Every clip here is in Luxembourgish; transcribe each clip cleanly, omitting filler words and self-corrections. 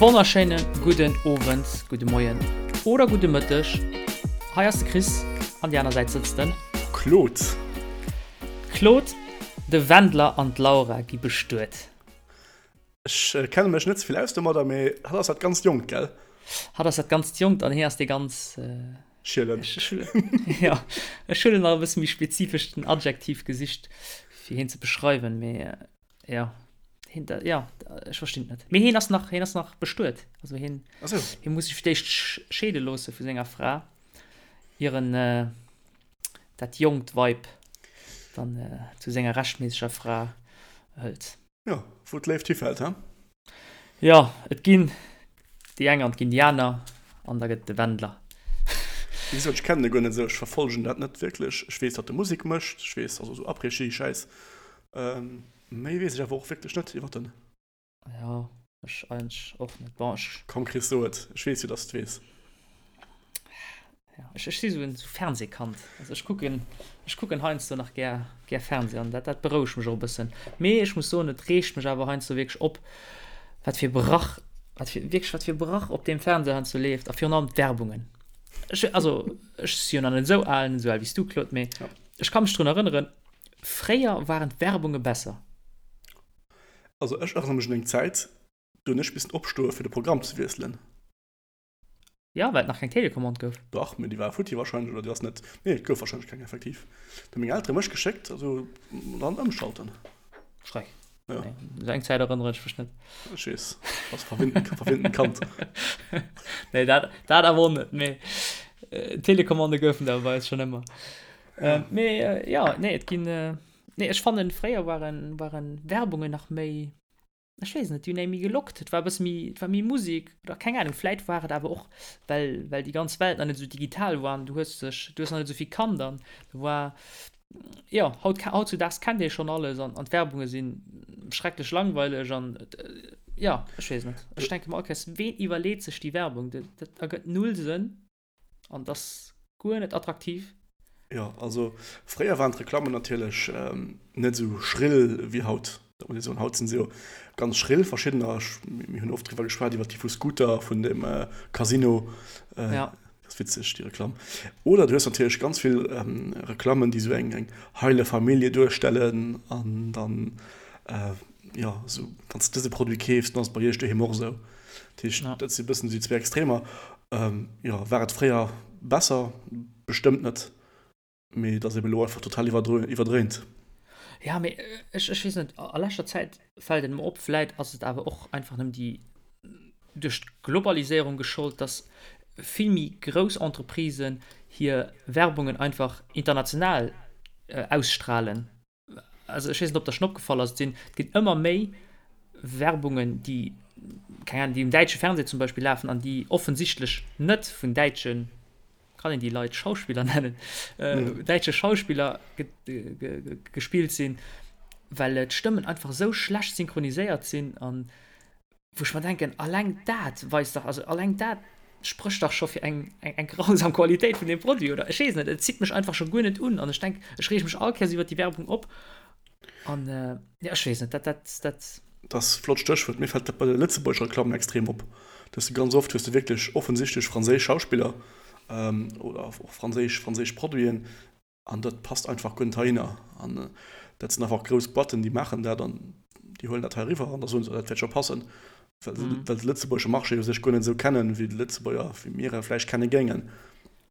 Wonnerschéine gudden Owend, gudde Moien oder gudde Mëtteg. Hei ass de Chris, an déi aner Säit sëtzt den. Claude. Claude, de Wendler an d'Laura gi bestuet. Ech kenne mech net ze vill aus domadder, mee hatt ass dat ganzt Jonkt, gell? Hatt ass dat ganzt Jonkt an hie ass dee ganz. Schielen. Jo, ech hunn nach e bësse méi spezifesch den Adjektiv gesicht, fir hien ze beschreiwen, mee. Ja, hien, da, ja, ech verstinn et net. Mee hien ass nach, hien ass nach bestuet. Also hien, Ach so. hien muss sech fir d'éischt scheede loosse vu senger Fra, ier en äh, dat jonkt Weib dann äh, zu senger rechtméisseger Fra hëlt. Ja, wou d'Léift hifält, he? Jo, et ginn déi eng an et ginn déi aner an da gëtt et de Wendler. Wéi gesot, ech kennen e guer net esou, ech verfollegen dat net wierklech. Ech weess, datt e Musek mécht, ech weess, also esou Après-Ski-Schäiss. Méi weess ech awer och wierklech net iwwer en. Jo, ech eigentlech och net. Bon, ech. Komm Chris, so et, ech weess jo, datt s de et weess. Ja, ech, ech si sou en Fernsehkand. Also ech kucken, ech kucken heiansdo nach gär, gär Fernseh an dat, dat berouegt mech och e bëssen. Mee ech muss soen, et reegt mech awer heiansdo wierklech op, wat fir Brach, wat fir, wierklech wat fir Brach op deem Fernseh heiansdo leeft a virun allem d'Werbungen. Ech, also ech si jo nach net esou al, net esou al wéi s du, Claude, mee ja. ech ka mech drun erënneren, fréier waren d'Werbunge besser. Also ech erënnere mech un eng Zäit, do hunn ech missen opstoe fir de Programm ze wiesselen. Ja, well et nach keng Telecommande gouf. Dach, mee déi war futti wahrscheinlech, oder déi ass net, nee, et gouf wahrscheinlech keng effektiv. Da hu meng Eltere mech geschéckt, also dann ëmschalten. Schreck. Ja. Nee, esou eng Zäit erënnere ech mech net. Ech weess, ass verwinnten, verwinnten Kand. Nee, dat, dat awer och net, mee äh, Telecommande goufen der bei eis schon ëmmer. Ja. Äh, mee äh, ja, nee, et ginn, äh, nee, ech fannen, fréier waren, waren Werbungen nach méi, Ech weess net, déi hunn ee méi gelockt, et war e bësse méi, et war méi Musek oder keng Ahnung. Vläit war et awer och, well, well déi ganz Welt nach net esou digital war an du hues dech, du hues nach net esou vill kannt an do war, jo, haut, hautzudaags kennt ee schonn alles an, an d'Werbunge si schrecklech langweileg an jo, ech weess net. Ech denke mer all Kéiers, ween iwwerleet sech déi Werbung? Dat, dat ergëtt null Sënn. An das guer net attraktiv. Jo, also fréier waren d'Reklammen natierlech net esou schrill wéi haut. Dat muss ee soen. Haut sinn se jo ganz schrill, verschiddener. Mir hunn oft driwwer geschwat, iwwer déi vu Scooter, vun dem Casino. Ja. Dat ass witzeg, déi Reklamm. Oder du hues natierlech ganz vill Reklammen, déi esou eng heile Famillje duerstellen an dann, jo, esou, wann s de dëse Produit keefs, dann ass et bei iech doheem och esou. Dat heescht, dat si bëssen déi zwee Extremer. Jo, war et fréier besser? Bestëmmt net, mee et ass eben elo einfach total iwwerdréint. Ja, mee ech, ech weess net, a leschter Zäit fält et mer op, vläit ass et awer och einfach nëmmen déi duerch d'Globaliséierung geschollt, dass vill méi grouss Entreprisen hir Werbungen einfach international ausstrahlen. also ech weess net, ob der schon opgefall ass, et sinn, et ginn ëmmer méi Werbungen, déi, keng Ahnung, déi um däitsche Fernseh zum Beispill lafen an déi offensichtlech net vun däitschen, kann een déi Leit Schauspiller nennen, mhm. däitsche Schauspiller ge ge gespillt sinn, well d'Stëmmen einfach esou schlecht synchroniséiert sinn an Wou ech mer denken, alleng dat weist dach, also alleng dat sprécht dach scho fir eng, eng, eng grausam Qualitéit vun deem Produit, oder? Ech weess net, et zitt mech einfach scho guer net un an ech denk, ech reege mech all Kéiers iwwert déi Werbung op an, jo, ech weess net, dat, dat, dat. Dat ass e flott Stéchwuert. Mir fält dat bei de lëtzebuergesche Reklammen extrem op, dass de ganz oft hues de wierklech offensichtlech franséisch Schauspiller oder och franséisch, franséisch Produiten, An dat passt einfach guer net heihinner. An dat sinn einfach grouss Boîten, déi maachen dat an déi huelen dat hei eriwwer an da soen se, dat wäert scho passen, well se well de lëtzebuergesche Marché u sech guer net esou kennen, wéi de Lëtzebuerger, wéi mir e vläicht kenne géingen.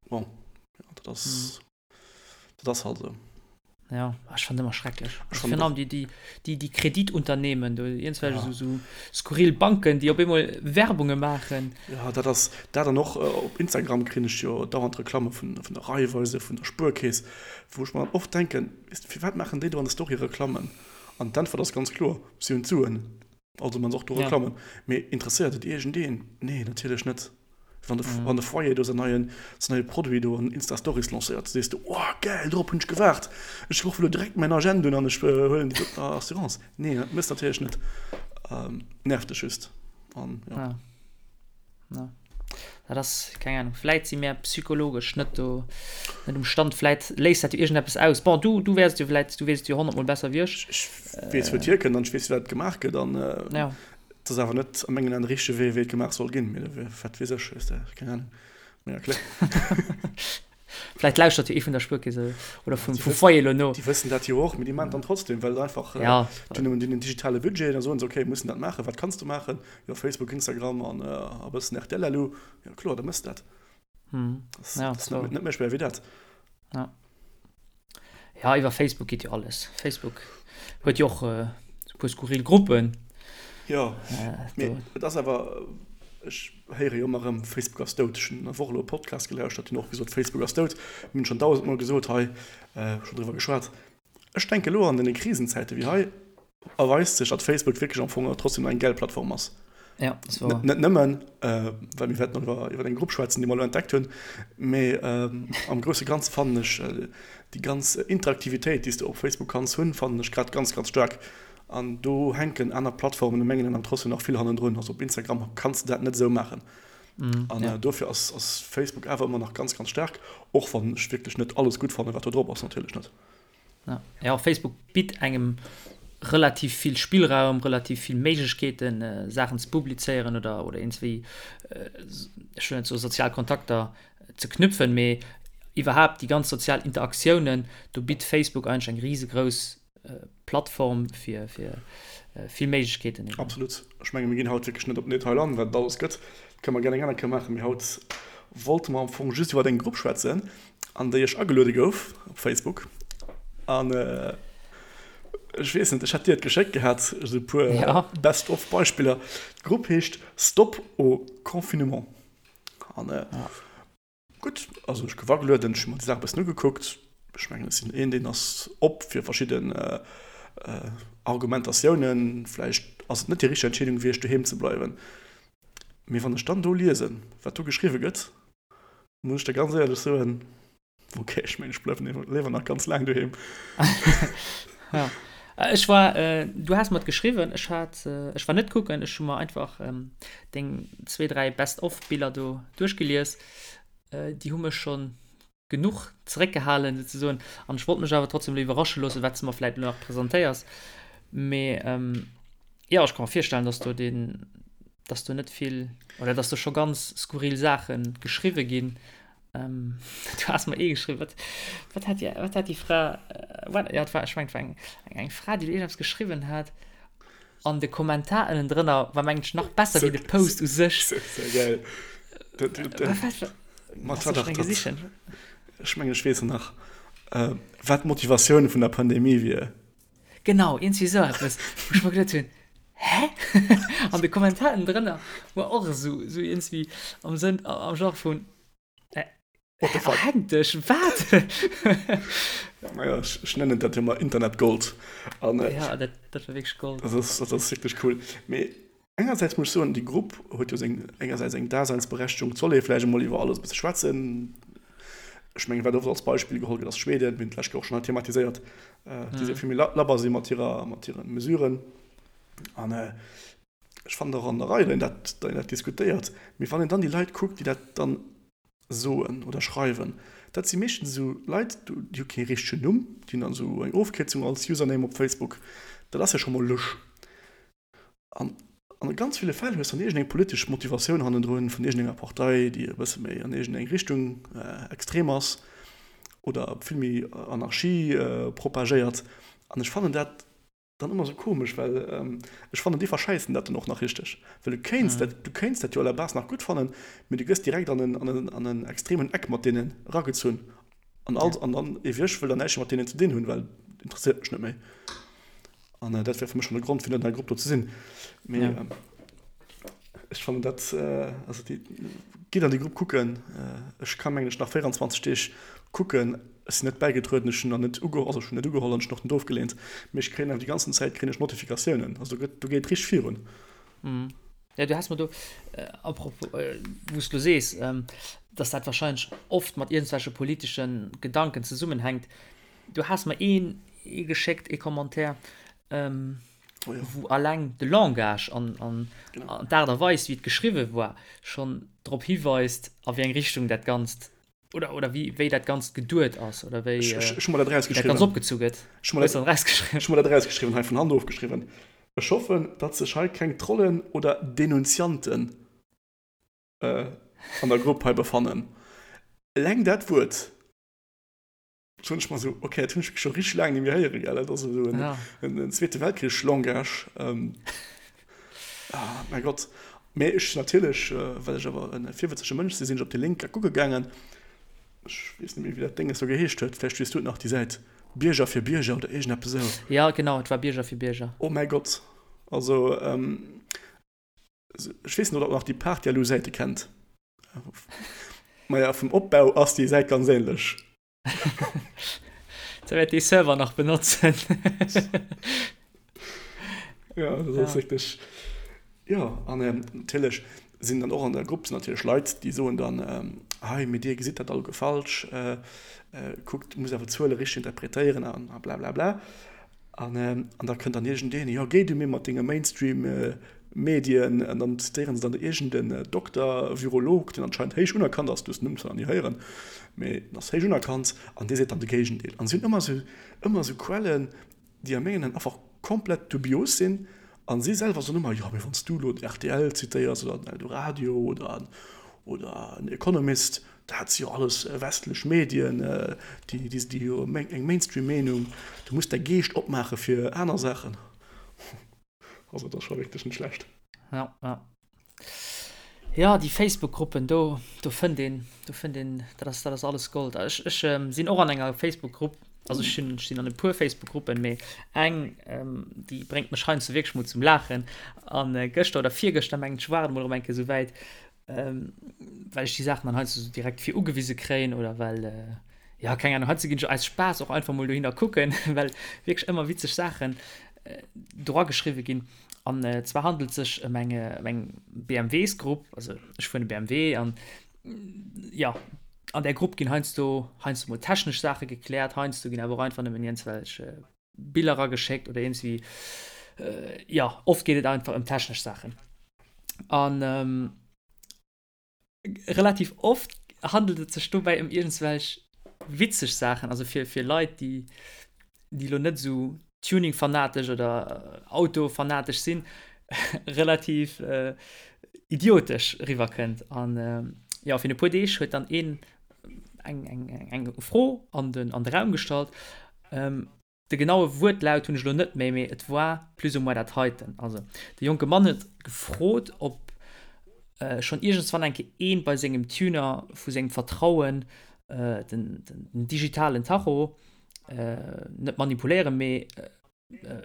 Bon, jo, dat ass, dat ass halt esou. Ja, ech fannen ëmmer schrecklech. Ech fannen och. Déi, déi, déi, déi Kreditunternehmen, do iergendwelch esou, esou skurril Banken, déi op eemol Werbunge maachen. Jo, dat ass dat. An och op Instagram kréien ech jo dauernd Reklamme vun, vun der Raiffeisen, vun der Spuerkeess, wou ech mer dann oft denken, weess de, firwat maachen déi do an der Story Reklammen? An d'Äntwert ass ganz kloer, Si hunn d'Suen. Also man se och do Reklammen. Mee interesséiert et iergendeen? Nee, natierlech net. Wann de, wann de Foyer do säin neien, säin neie Produit do an Insta Stories lancéiert, sees de, oh gäil, dorop hunn ech gewaart, ech ruffen elo direkt mäin Agent un an ech huelen déi doten Assurance. Nee, dat méchs natierlech net. Nervt dech just. An jo. Ja. Ja. Dat ass, keng Ahnung, vläit si mär psychologesch net do, net um Stand, vläit léist dat jo iergendeppes aus. Bon, du, du wäers et jo vläit, du weess et jo honnertmol besser wéi ech. Ech weess, wou et hierkënnt an ech weess, wéi dat gemaach gëtt an. Ja. Et ass awer net a mengen Aen de richtege Wee, wéi et gemaach soll ginn. Mee wat weess ech, weess de, keng Ahnung. Mee ja, kloer. Vläicht lauschtert jo ee vun der Spuerkeess oder vum Foyer elo no. Déi wëssen dat jo och, mee déi maachen et dann trotzdem, well et einfach, déi hunn en digitale Budget, da soen se, okay, mir mussen dat maachen, wat kanns de maachen? Jo, Facebook, Instagram an e bëssen rtl elo. Jo, kloer, da méchs de dat. Dat ass net méi schwéier wéi dat. Ja, iwwer Facebook geet jo alles. Facebook huet jo och e puer skurril Gruppen. Jo, mee et ass awer, ech héiere jo ëmmer erëm, Facebook ass dout. Ech hunn der Woch elo e Podcast gelauschtert, déi hunn och gesot, Facebook ass dout. Mir hunn schonn dausendmol gesot hei, schonn driwwer geschwat. Ech denke elo an deene Krisenzäite wéi hei erweist sech, datt Facebook wierklech am Fong trotzdem nach eng gäil Plattform ass. Ja, das war. Net nëmmen, well mir wäerten iwwer, iwwer eng Grupp schwätzen, déi mer elo entdeckt hunn, mee am grousse Ganze fannen ech déi ganz Interaktivitéit, déi s de op Facebook kanns hunn, fannen ech grad ganz, ganz staark. An do hänken aner Plattformen a mengen Aen trotzdem nach vill hannendrun. Also op Instagram kanns de dat net esou maachen. An dofir ass, ass Facebook awer ëmmer nach ganz, ganz staark, och wann ech wierklech net alles gutt fannen, wat do drop ass, natierlech net. Ja, ja Facebook bitt engem relativ vill Spillraum, relativ vill Méiglechkeeten, äh, Saachen ze publizéieren oder, oder iergendswéi, äh, ech wëll net soe sozial Kontakter ze knüpfen, mee iwwerhaapt déi ganz sozial Interaktiounen, do bitt Facebook eigentlech eng risegrouss äh, Plattform fir, fir äh, vill Méiglechkeeten eben. Absolut. Ech menge mir ginn haut wierklech net op den Detail an, wat et alles gëtt. Dat kënne mer gär eng aner Kéier maachen, mee haut wollte mer am Fong just iwwer eng Grupp schwätzen, an déi ech ageluede gouf op Facebook an ech weess net, ech hat dir et geschéckt gehat, esou e puer ja. Best of Beispiller. D'Grupp heescht Stop au confinement an äh, ja. gutt, also ech gouf agelueden, ech hu mer déi Saach e bëssen ugekuckt. Ech mengen ech sinn een, deen ass op fir verschidden äh, äh, Argumentatiounen. Vläicht ass et net déi richteg Entscheedung gewiescht, doheem ze bleiwen. Mee wann ech dann do liesen, wat do geschriwwe gëtt, Muss ech der ganz éierlech soen, ok, ech mengen, ech bleiwen léiwer nach ganz laang doheem. Ja. Ech war, äh, du has mer et geschriwwen, ech hat, äh, ech war net kucken, ech hu mer einfach ähm, deng zwee, dräi Best-of-Biller do duerchgelies. Äh, déi hu mech schonn genuch zeréckgehalen souzesoen an ech wollt mech awer trotzdem elo iwwerrasche loossen, wat s de mer vläit elo nach presentéiers. Mee ähm, jo, ech ka mer virstellen, dass do deen, dass do net vill oder dass do scho ganz skurril Saache geschriwwe ginn. Ähm, du has mer ee geschriwwen, wat, wat hat déi, wat hat déi Fra, äh, wat, ja, et war, ech mengen, et war eng, eng, eng Fra, déi do iergendeppes geschriwwen hat an de Kommentar ënnendrënner war, mengen ech, nach besser wéi de Post u sech. Sehr geil. Dat, dat, dat, Wat, wat, Mat wat ech gesichen. Ech mengen, ech weess et nach, äh, wat d'Motivatioun vun der Pandemie wier. Genau, iergendwéi esou eppes, wou ech mer geduet hunn, Hä? An de Kommentar ënnendrënner war och esou, esou iergendwéi am Sënn, am Genre vun, Äh, What the fuck? Erhängt dech, wat? Naja, ech, ech nennen dat jo mol Internetgold. An, äh, Ja, dat, dat war wierklech Gold. Dat ass, dat ass wierklech cool. Mee engersäits muss ech soen, déi Grupp huet jo seng, engersäits eng Daseinsberechtigung. Et soll ee vläicht emol iwwer alles e bësse schwätzen. Ech mengen, wat oft als Beispill geholl gëtt, ass Schweden. Mir hunn d'lescht Kéier och schonn hei thematiséiert, déi se vill méi labber si mat hirer, mat hire Mesuren. An ech fannen och an der Rei, datt een dat, datt een dat diskutéiert. Mee wann een dann déi Leit kuckt, déi dat dann soen oder schreiwen, dat si meeschtens esou Leit, déi hu kee richtegen Numm, déi hunn dann esou eng Ofkierzung als Username op Facebook. Dat ass jo scho mol lusch. An a ganz ville Fäll hues dann iergendeng politesch Motivatioun hannendrun vun iergendenger Partei, déi e bësse méi an iergendeng Richtung extrem ass oder vill méi Anarchie propagéiert. An ech fannen dat dann ëmmer esou komesch, well ech fannen, déi verschäissen dat dann och nach richteg. Well du kéints dat, du kéints dat jo à la base nach gutt fannen, mee du gëss direkt an en, an en, an en extremen Eck mat deenen eragezunn. An all, an dann ewech ech wëll dann näischt méi mat deenen ze dinn hunn, well interesséiert mech net méi. An dat wär fir mech schonn e Grond, fir net an der Grupp do ze sinn. Mee ech fannen dat, also déi, gitt an déi Grupp kucken. Ech ka mengen ech nach 24 Deeg kucken. Ech sinn net bäigetrueden, ech hunn nach net ugeholl, also ech hunn net ugeholl an ech hunn och net ofgeleent, mee ech kréien awer déi ganzen Zäit kréien ech Notifikatiounen, also do gëtt, do geet richteg virun. Ja, du has mer do, à propos, wou s du elo sees, dass dat wahrscheinlech oft mat iergendwelche politesche Gedanken zesummenhänkt, du has mer een ee geschéckt, ee Commentaire, wou alleng de Langage an, an d'Aart a Weis, wéi et geschriwwe war, schonn drop hiweist, a wéi eng Richtung dat Ganzt Oder, oder wéi, wéi dat Ganzt geduet ass oder wéi Ech, ech, ech hu mer dat erausgeschriwwen. Dat Ganzt opgezu gëtt. Ech hu mer dat, ech hu mer dat erausgeschriwwen, hei vun Hand ofgeschriwwen. Ech hoffen, datt sech hei keng Trollen oder Denunzianten an der Grupp hei befannen. Eleng dat Wuert, soen ech mer esou, ok, dat hunn ech scho richteg laang net méi héieren, gell, dat ass esou en Zweete Weltkrich-Langage. Ah, mäi Gott. Mee ech natierlech, well ech awer e virwëtzege Mënsch sinn, sinn ech op de Link kucke gaangen. Ech weess net méi, wéi dat Dénges do geheescht huet. Vläicht weess du et nach, déi Säit Bierger fir Bierger oder iergendeppes esou. Jo, genau, et war Bierger fir Bierger. Oh mäi Gott. Also, ech weess net, ob der nach déi Partyaloo-Säite kennt. Maja, vum Opbau ass déi Säit ganz ähnlech. Da wäert dee Server nach benotzen. Ja, dat ass wierklech. Jo, an natierlech sinn dann och an der Grupp sinn natierlech Leit, déi soen dann, hei, mee dir gesitt dat alleguer falsch, kuckt, musst awer d'Zuele richteg interpretéieren a blablabla. An an da kënnt dann iergendeen, jo géi du mir mat denge Mainstream Medien, an dann zitéieren se dann iergend en Dokter, Virolog, deen anscheinend héich unerkannt ass, du hues den Numm zwar nach ni héieren, mee en ass héich unerkannt, an dee seet dann de Géigendeel. An si hunn ëmmer esou, ëmmer esou Quellen, déi a mengen Aen einfach komplett dubios sinn, an si selwer soen ëmmer, jo mee wann s du elo den rtl zitéiers oder den Eldoradio oder oder en Economist, Dat si jo alles westlech Medien, déi déi jo eng Mainstream-Meenung. Du muss däi Geescht opmaache fir aner Saachen. Also dat ass scho wierklech net schlecht. Ja, ja. Ja, déi Facebook-Gruppen, do, do fënnt een, do fënnt een, dat ass, dat ass alles Gold. Ech, ech ähm, sinn och an enger Facebook-Grupp, also ech sinn, ech sinn an e puer Facebook-Gruppen, mee eng, ähm, déi bréngt mech heiansdo wierklech mol zum Laachen. An äh, gëschter oder virgëschter, mengen ech, war et mol erëm eng Kéier esou wäit, ähm, well ech déi Saachen dann heiansdo so direkt fir ugewise kréien oder well äh, ja keng Ahnung, heiansdo ginn ech aus Spaass och einfach mol dohinner kucken, well wierklech ëmmer witzeg Saachen äh, dra geschriwwe ginn. An äh, zwar handelt sech ëm eng, ëm eng BMWs-Grupp, also ech fueren e BMW an ja, an där Grupp ginn heiansdo heiansdo mol technesch Saache gekläert, heiansdo ginn awer och einfach nëmmen iergendwelch äh, Biller erageschéckt oder iergendwéi, äh, ja, oft geet et einfach ëm technesch Saachen. An ähm, relativ oft handelt et sech dobäi ëm iergendswelch witzeg Saachen, also fir, fir Leit, déi, déi lo net esou Tuning-fanatesch oder Auto-fanatesch sinn, relativ äh, idiotesch riwwerkënnt. An äh, ja, fir e puer Deeg huet dann een eng, eng, eng Fro an den, an de Raum gestallt. Ähm, de genaue Wuertlaut hunn ech elo net méi, mee et war plus ou moins dat heiten. Also, de jonke Mann huet gefrot, ob äh, schonn iergendswann eng Kéier een bei sengem Tuner vu sengem Vertrauen äh, den, den, den digitalen Tacho äh, net manipuléieren, mee äh,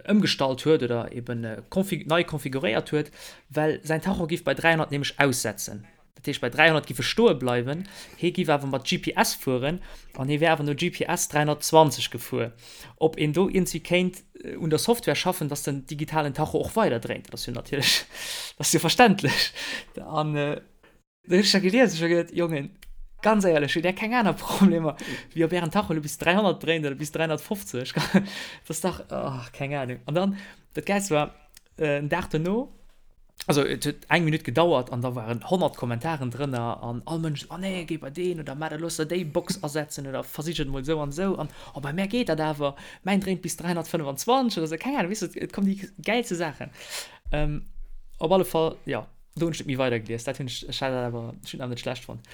ëmgestallt huet oder eben nei konfiguréiert huet, well säin Tacho giff bei 300 nämlech aussetzen. Dat heescht bei 300 giff e stoe bleiwen, hee giff awer mat GPS fueren an hee wär awer no GPS 320 gefuer. Ob een do iergendwéi kéint un der Software schaffen, dass den digitalen Tacho och weider dréint, dat ass jo natierlech, dat ass jo verständlech. An Da hunn ech dat gelies, ech hu geduet, Jongen, ganz éierlech, hutt Där keng aner Problemer, wéi ob Ären Tacho elo bis 300 dréint oder bis 350? Dat ass dach, oh, keng Ahnung. An dann, dat Gäilst war, en Dag duerno, also et huet eng Minutt gedauert an da waren 100 Kommentaren drënner an all Mënsch, oh nee, géi bei deen oder maach dat, looss der déi Box asetzen oder versich et emol esou an esou an oh, bei mär geet dat awer, mäin dréint bis 325 oder esou, keng Ahnung, weess de, et kommen déi gäilste Saachen. Op alle Fall, jo. Do hunn ech net méi weider gelies, dat hunn ech, ech hat dat awer, ech hunn awer net schlecht fonnt.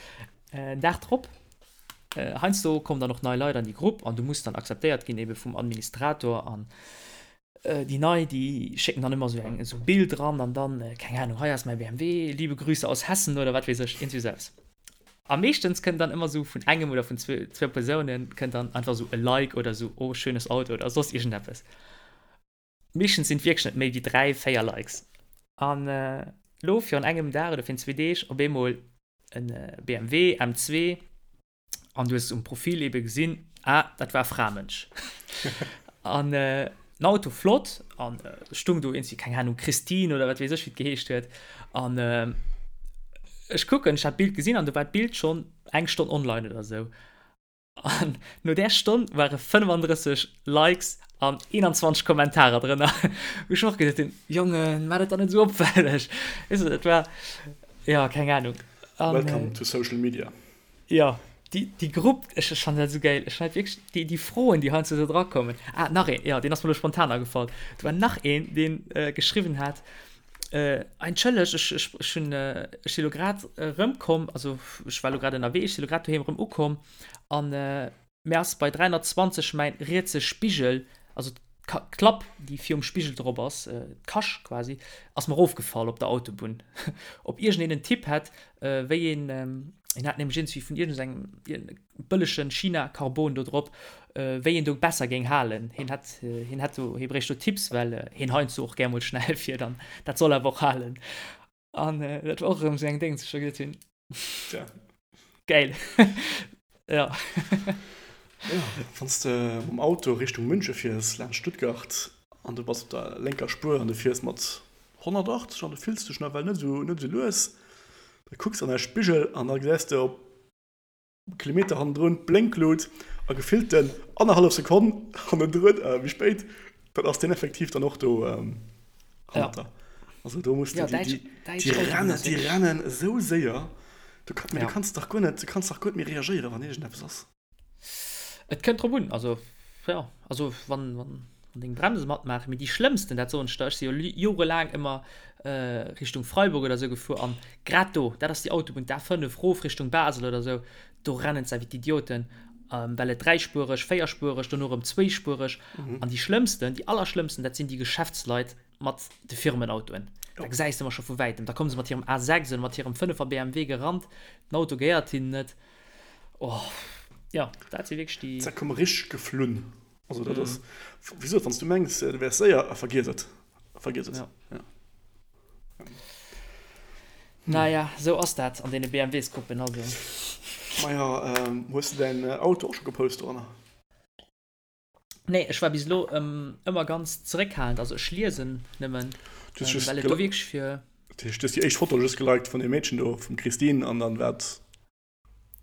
En Dag drop, heiansdo kommen dann och nei Leit an déi Grupp an du muss dann akzeptéiert ginn ebe vum Administrator an déi nei, déi schécken dann ëmmer esou eng, esou e Bild ran an dann, keng Ahnung, hei ass mäi BMW, liebe Grüße aus Hessen oder wat weess ech, iergendwéi esou eppes. A meeschtens kënnt dann ëmmer esou vun engem oder vun zwou, zwou Persounen kënnt dann einfach esou e Like oder esou, oh schönes Auto oder soss iergendeppes. Meeschtens sinn et wierklech net méi wéi 3, 4 Likes. An elo virun engem Dag oder virun zwee Deeg op eemol en BMW M2 an du hues um Profil ebe gesinn, ah, dat war e Framënsch. An den Auto flott an stung do iergendwéi, keng Ahnung, Christine oder wat weess ech wéi et geheescht huet. An ech kucken, ech hat d'Bild gesinn an do war d'Bild schonn eng Stonn online oder esou. An no där Stonn ware 35 Likes an 21 Kommentarer drënner. Wou ech och geduet hunn, Jongen, maach dat dach net esou opfälleg. Weess de, dat war, jo, keng Ahnung. An, Welcome to social media. Jo. Déi, déi Grupp, ech, ech fannen dat esou gäil. Ech fannen dat wierklech, déi, déi Froen, déi heiansdo do drakommen. Ah, nach een, jo, deen ass mer elo spontan agefall. Do war nach een, deen geschriwwen hat, Entschëlleg, ech, ech, ech hunn, ech si lo grad erëmkomm, also ech war lo grad ënnerwee, ech si lo grad doheem erëm ukomm an mir ass bei 320 mäin rietse Spigel, also d'Klapp, déi virum Spigel drop ass, d'Kascht quasi, ass mer erofgefall op der Autobunn. Ob iergendeen en Tipp hätt, wéi een, hien hat nämlech iergendwéi vun iergendengem bëllegen China-Carbon do drop, wéi een do besser géing halen. Hien hätt, hien hätt do, hie bréicht do Tipps, well hien heiansdo och gär mol schnell fiert an dat soll awer och halen. An dat war och erëm esou eng Déngs, wou ech da geduet hunn, Tja. Geil. Ja. Ja, wann s de mam Auto Richtung Münche fiers, laanscht Stuttgart, an du bass op der lénker Spuer an du fiers mat 180 an du fills dech nawell net esou, net esou lues, da kucks an däi Spigel an da gesäis de op Kilometer hannendrun d'Blénklut a gefillten annerhallef Sekonn hannendrun, méi spéit, dann ass deen effektiv dann och do hannert der. Also do muss du, déi, déi rennen, déi rennen esou séier, du kann, du kanns dach guer net, du kanns dach guer net méi reagéieren, wann iergendeppes ass. Et kënnt drop un, also jo, also wann, wann deng Bremse matmaachen, mee déi schlëmmsten, dat soen ech der, ech si jo jorelaang ëmmer Richtung Freiburg oder sou gefuer an grad do, dat ass déi Autobunn, d'A5 rof Richtung Basel oder sou, do rennen se wéi d'Idioten, well et dräispuereg, véierspuereg, dono erëm zwéispuereg an déi schlëmmsten, déi allerschlëmmsten, dat sinn déi Geschäftsleit mat de Firmenautoen. Da gesäis de ëmmer scho vu wäitem, da komme se mat hirem A6 oder mat hirem 5er BMW gerannt, den Auto gehéiert hinnen net. Oh, jo, dat si wierklech déi. Se komme richteg geflunn. Also dat ass, wéi gesot, wann s du mengs, du wäers séier, vergiess et. Vergiess et. Ja. Ja. Naja, sou ass dat an deene BMW-s-Gruppen, also. Maja, ähm, hues du däin Auto och scho gepost doranner? Nee, ech war bis elo ähm, ëmmer ganz zeréckhalend, also ech liesen nëmmen, Du ähm, well et do wierklech fir. Du hues déi éischt Foto just geliked vun deem Meedchen do, vum Christine, an dann war et.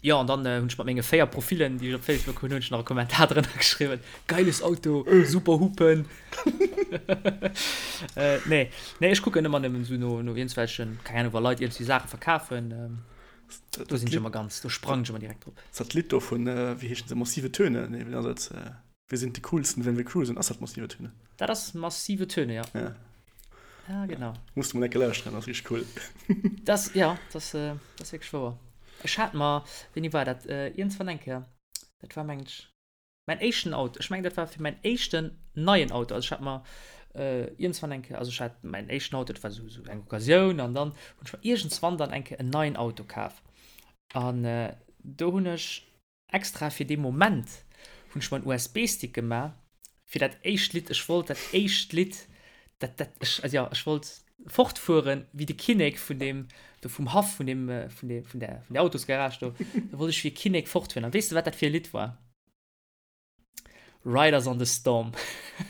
Jo, an dann hunn ech mat menge 4 Profilen, déi ech op Facebook hunn, hunn ech nach e Kommentar drënner geschriwwen, Geiles Auto, super Hupen. Nee, nee, ech kucken ëmmer nëmmen esou no, no iergendwelchen, keng Ahnung, wa Leit iergendwéi Saache verkafen, do sinn ech ëmmer ganz, do sprangen ech ëmmer direkt drop. Dat Lidd do vun, wéi heeschen se, Massive Töne? Nee, wéi ass et? Wir sind die coolsten, wenn wir cruisen. Ass dat Massive Töne? Dat ass Massive Töne, ja. Ja. Ja, genau. Muss du mol eng Kéier lauschteren, ass richteg cool. Das, ja, das, äh, das ass wierklech wouer. Ech hat mer, wéini war dat? Äh, iergendwann eng Kéier, dat war mengen ech mäin éischten Auto. Ech mengen, dat war fir mäin éischten neien Auto. Also ech hat mer äh, iergendwann eng Kéier, also ech hat mäin éischten Auto, dat war sou, sou eng Occasioun an dann hunn ech mer iergendswann dann eng Kéier en neien Auto kaf. An äh, do hunn ech Extra fir dee Moment hunn ech mer en USB-Stick gemaach fir dat éischt Lidd. Ech wollt dat éischt Lidd, dat, dat, ech, also jo, ech wollt fortfueren wéi de Kinnek vun deem, do vum Haff vun deem, vun deem, vun där, vun där Autosgarage do. Do wollt ech wéi e Kinnek fortfueren. An weess de, wat dat fir e Lidd war? Riders on the Storm.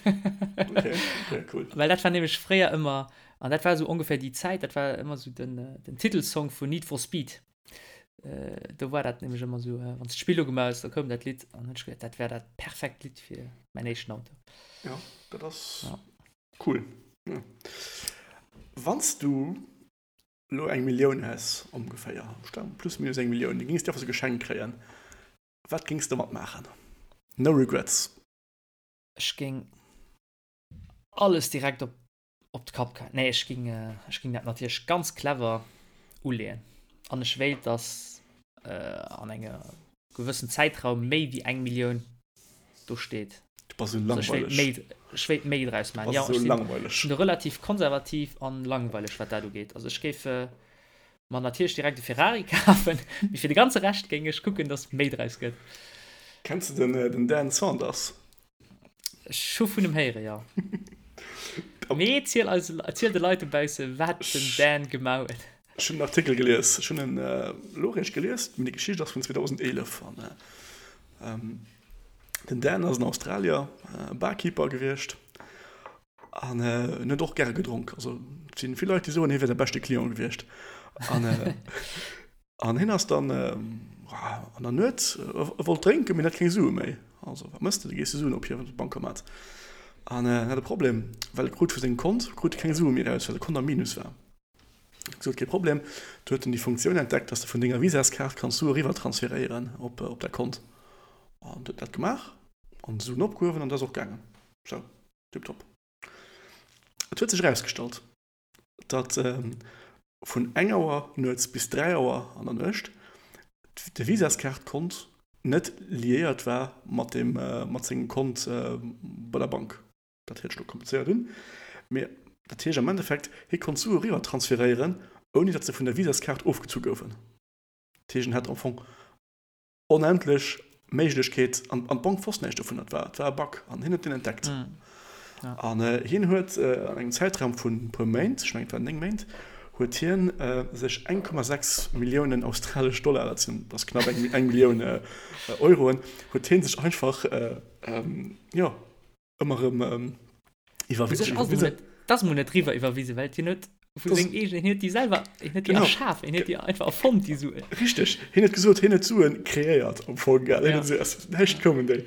Okay, okay, cool. Well dat war nämlech fréier ëmmer, an dat war esou ongeféier déi Zäit, dat war ëmmer esou den, den Titelsong vun Need for Speed. Äh, do war dat nämlech ëmmer esou, äh, wann s d'Spill ugemaach hues, da koum dat Lidd an hunn ech geduet, dat wär dat perfekt Lidd fir mäin éischten Auto. Ja, dat ass ja. cool. Ja. Wann s du lo eng Millioun häss, ongeféier, plus minus eng Millioun, déi géings du einfach sou geschenkt kréien, Wat géings de domat maachen? No regrets. Ech géing alles direkt op op d'Kap geheien. Nee, ech géing ech géing dat natierlech ganz clever uleeën. An ech wéilt, dass an enger gewëssen Zäitraum méi wéi eng Millioun do steet. Du bass esou langweileg. Ech wéilt méi, ech wéilt méi draus maachen. Du bass esou langweileg. Ech sinn relativ konservativ an langweileg, wat dat ugeet. Also ech géif Mer natierlech direkt e Ferrari kafen, mee fir de ganze Rescht géing ech kucken, dass méi draus gëtt. Kenns de den Dan Saunders? Ech hu vun em héieren, jo. Mee ziel eis, ziel de Leit dobausse wat den Dan gemaach huet. Ech hunn en Artikel gelies, ech hunn en elo eréischt gelies, mee déi Geschicht ass vun 2011 an den Dan ass en Australier, Barkeeper gewiescht An en huet och gäre gedronk. Also et sinn vill Leit, déi soen, hie wier säi beschte Client gewiescht. An, an hien ass dann an der Nuet, e wollt drénken, mee en hat keng Sue méi. Also wat mëss de? Du gees de Suen ophiewen op de Bancomat. An en hat e Problem, well e krut vu sengem Kont krut e keng Sue méi eraus, well de Kont am Minus war. Gesot, kee Problem. Du huet en déi Funktioun entdeckt, dass de vun denger Visaskaart kanns Sue eriwwer transferéieren op op däi Kont. An huet dat gemaach an d'Suen opgehuewen an dat ass och gaangen. Sou, tiptop. Et huet sech erausgestallt, datt vun eng Auer nuets bis 3 Auer an der Nuecht de Visaskaart-Kont net liéiert war mat dem mat sengem Kont bei der Bank. Dat héiert sech elo komplizéiert un, mee dat heescht am Endeffekt, hie konnt Sue eriwwer transferéieren, ouni datt se vun der Visaskaart ofgezu goufen. Dat heescht, en hat am Fong onendlech Méiglechkeet, an d'Bank wosst näischt dovun, et war, et war e Bug an hien huet deen entdeckt. An hien huet an engem Zäitraum vun e puer Méint, ech mengen et waren 9 Méint, huet hien sech 1,6 Milliounen australesch Dollar, dat sinn, dat ass knapp eng, eng Millioun Euroen, huet hien sech einfach, jo, ëmmer erëm iwwerwisen. Dat ass mol net riwwer iwwerwisen, well hien huet vu sengem eegenen, hien huet déi selwer, hien huet déi erschaf, hien huet déi einfach erfonnt, déi Suen. Richteg, hien huet gesot, hien huet d'Suen kreéiert am Fong, gell, hien huet se aus dem Näischt koumen déi.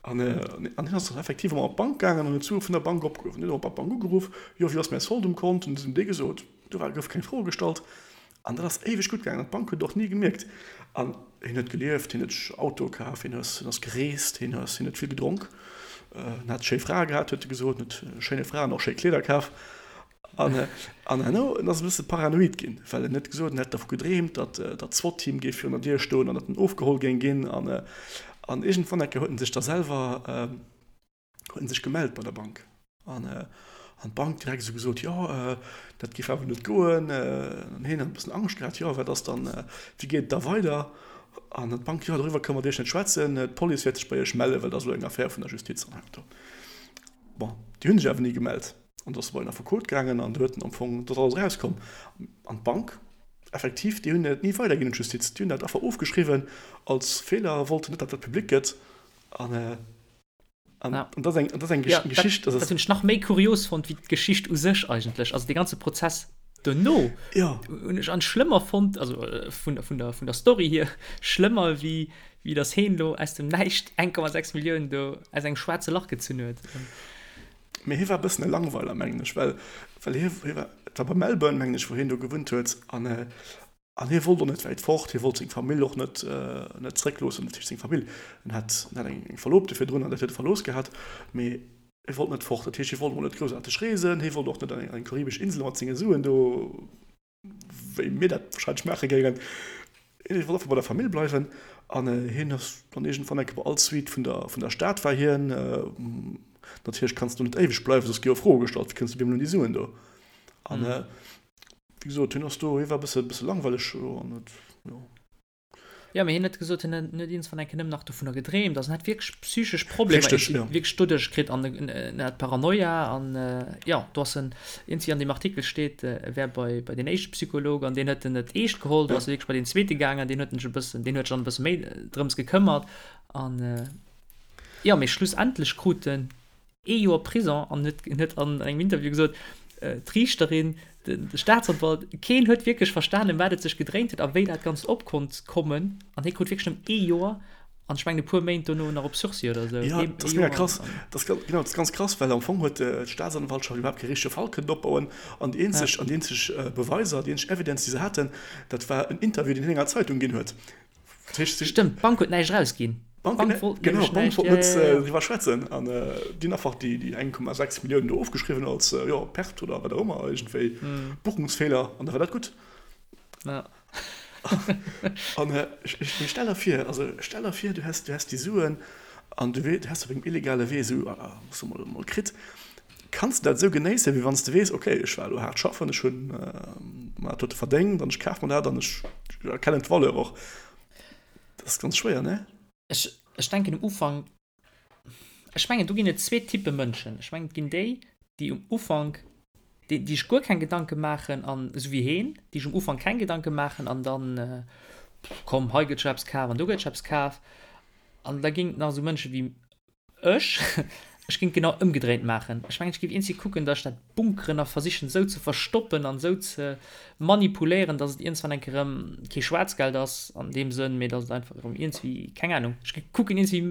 An an hien ass dann effektiv ëmmer op d'Bank gaangen an huet d'Sue vun der Bank opgehuewen. Hien huet och bei d'Bank ugeruff, jo, wéi ass mäi Solde um Kont? Hunn se him dee gesot, do war, gouf keng Fro gestallt. An dat ass éiweg gutt gaangen an d'Bank huet et och ni gemierkt. An hien huet gelieft, hien huet sech Autoe kaf, hien ass, hien ass gereest, hien ass, hien huet vill gedronk, en hat schéi Frae gehat, huet e gesot, en huet schéine Fraen och schéi Kleeder kaf. An, an herno, en ass e bësse paranoid ginn, well en huet gesot, en hätt dervu gedreemt, datt, datt d'SWAT-Team géif virun der Dier stoen an datt en ofgeholl géing ginn. An, an iergendwann eng Kéier huet en sech da selwer, huet en sech gemellt bei der Bank an an d'Bank direkt esou gesot, jo dat géif awer net goen. An hien huet e bëssen Angscht gehat, jo wat ass dann, wéi geet et da weider? An d'Bank, jo doriwwer kënne mer mat Iech net schwätzen, d'Police wäert sech bei Iech mellen, well dat ass elo eng Affär vun der Justiz an hei an do. Bon, déi hu sech awer ni gemellt an do ass e bei en Affekot gaangen an do huet en am Fong, do ass alles erauskomm. An d'Bank effektiv, déi hunn dat ni weiderginn un d'Justiz, déi hunn dat einfach ofgeschriwwen als Feeler, wollten net, datt dat public gëtt an. An, ja. an das eng, das eng ja, Geschicht. Dat, dat hunn ech nach méi kurios fonnt wéi d'Geschicht u sech eigentlech. Also de ganze Prozess dono ja. hunn ech an schlëmmer fonnt, also äh, vun, vun, der, vun der Story hier, schlëmmer wéi, wéi dass heen lo aus dem Näischt 1,6 Milliounen do aus engem schwaarze Lach gezunn huet. Mee hie war e bëssen e Langweiler, mengen ech, well, well hie, hie war, et war bei Melbourne, mengen ech, wou hien do gewunnt huet an, äh, An hie wollt och net wäit fort, hie wollt seng Famill och net net zréckloossen, dat heescht seng Famill, en hat en hat eng Verlobte virdrun an dat huet e verlooss gehat, mee hie wollt net fort, dat heescht hie wollt emol net groussaarteg reesen, hie wollt och net an eng karibesch Insel mat senge Suen do, wéi mir dat wahrscheinlech maache géingen, hie wollt einfach bei der Famill bleiwen an hien ass dann iergendwann eng Kéier bei all Suite vun der vun der Stad war hien, natierlech kanns du net éiweg bleiwen, soss gi jo Froe gestallt, wéi kënns du op eemol un déi Suen do an. Wéi gesot, hien ass do, hie war e bësse, bësse langweileg an huet, jo. Jo, mee hien huet gesot, hien huet iergendwann eng Kéier nëmmen nach dovunner gedreemt. Also en hat wierklech psychesch Problemer Richteg, jo. wierklech doduerch kritt an en hat Paranoia an, jo, do ass en, iergendwéi an deem Artikel steet, e wär bei, bei deen éischte Psycholog an deen huet en net eescht geholl. Do ass e wierklech bei deen zweete gaangen, deen huet en sech e bëssen, deen huet sech dann e bësse méi drëms gekëmmert an, jo, mee schlussendlech krut en ee Joer Prison an huet huet an engem Interview gesot, d'Riichterin, de Staatsanwalt, keen huet wierklech verstanen, ëm wat et sech gedréint huet a wéi dat Ganzt op konnt kommen. An hie krut wierklech nëmmen ee Joer an ech mengen e puer Méint dono nach op Sursis oder esou. Jo, dat ass mega krass. Dat ass, genau, dat ass ganz krass, well am Fong huet d'Staatsanwaltschaft iwwerhaapt kee richtege Fall kënnen opbauen an déi eenzeg, an déi eenzeg Beweiser, déi eenzeg Evidence, déi se haten, dat war en Interview, deen hien enger Zeitung ginn huet. Stëmmt, d'Bank huet näischt erausginn. D'Bank wollt genau, d'Bank wollt net driwwer schwätzen an déi hunn einfach déi 1,6 Milliounen do ofgeschriwwen als jo Perte oder wat och ëmmer, iergendwéi Buchungsfeeler an da war dat gutt. An ech stell der vir, also stell der vir, du häss, du häss déi Suen an du häss op engem illegale Wee esou, soe mer emol, kritt. Kanns de dat esou genéissen, wéi wann s de weess, ok, ech war elo haart schaffen, ech hunn mer dat dote verdéngt an ech kaf mer dat an ech erkennen d'Valeur och. Dat ass ganz schwéier, ne? Ech, ech denken um Ufank, ech mengen do ginn et zwee Typpe Mënschen. Ech mengen et ginn déi, déi um Ufank, déi, déi sech guer keng Gedanke maachen an, esou wéi heen, déi sech um Ufank keng Gedanke maachen an dann, komm hei gëtt scho eppes kaf an do gëtt scho eppes kaf. An da ginn et nach esou Mënsche wéi Ech? Ech géing et genau ëmgedréint maachen. Ech mengen, ech géif iergendwéi kucken, datt ech dat bunkeren a versichen esou ze verstoppen an esou ze manipuléieren, datt et iergendwann eng Kéier erëm kee Schwaarzgeld ass an deem Sënn, mee datt et einfach erëm iergendwéi, keng Anung, ech géif kucken iergendwéi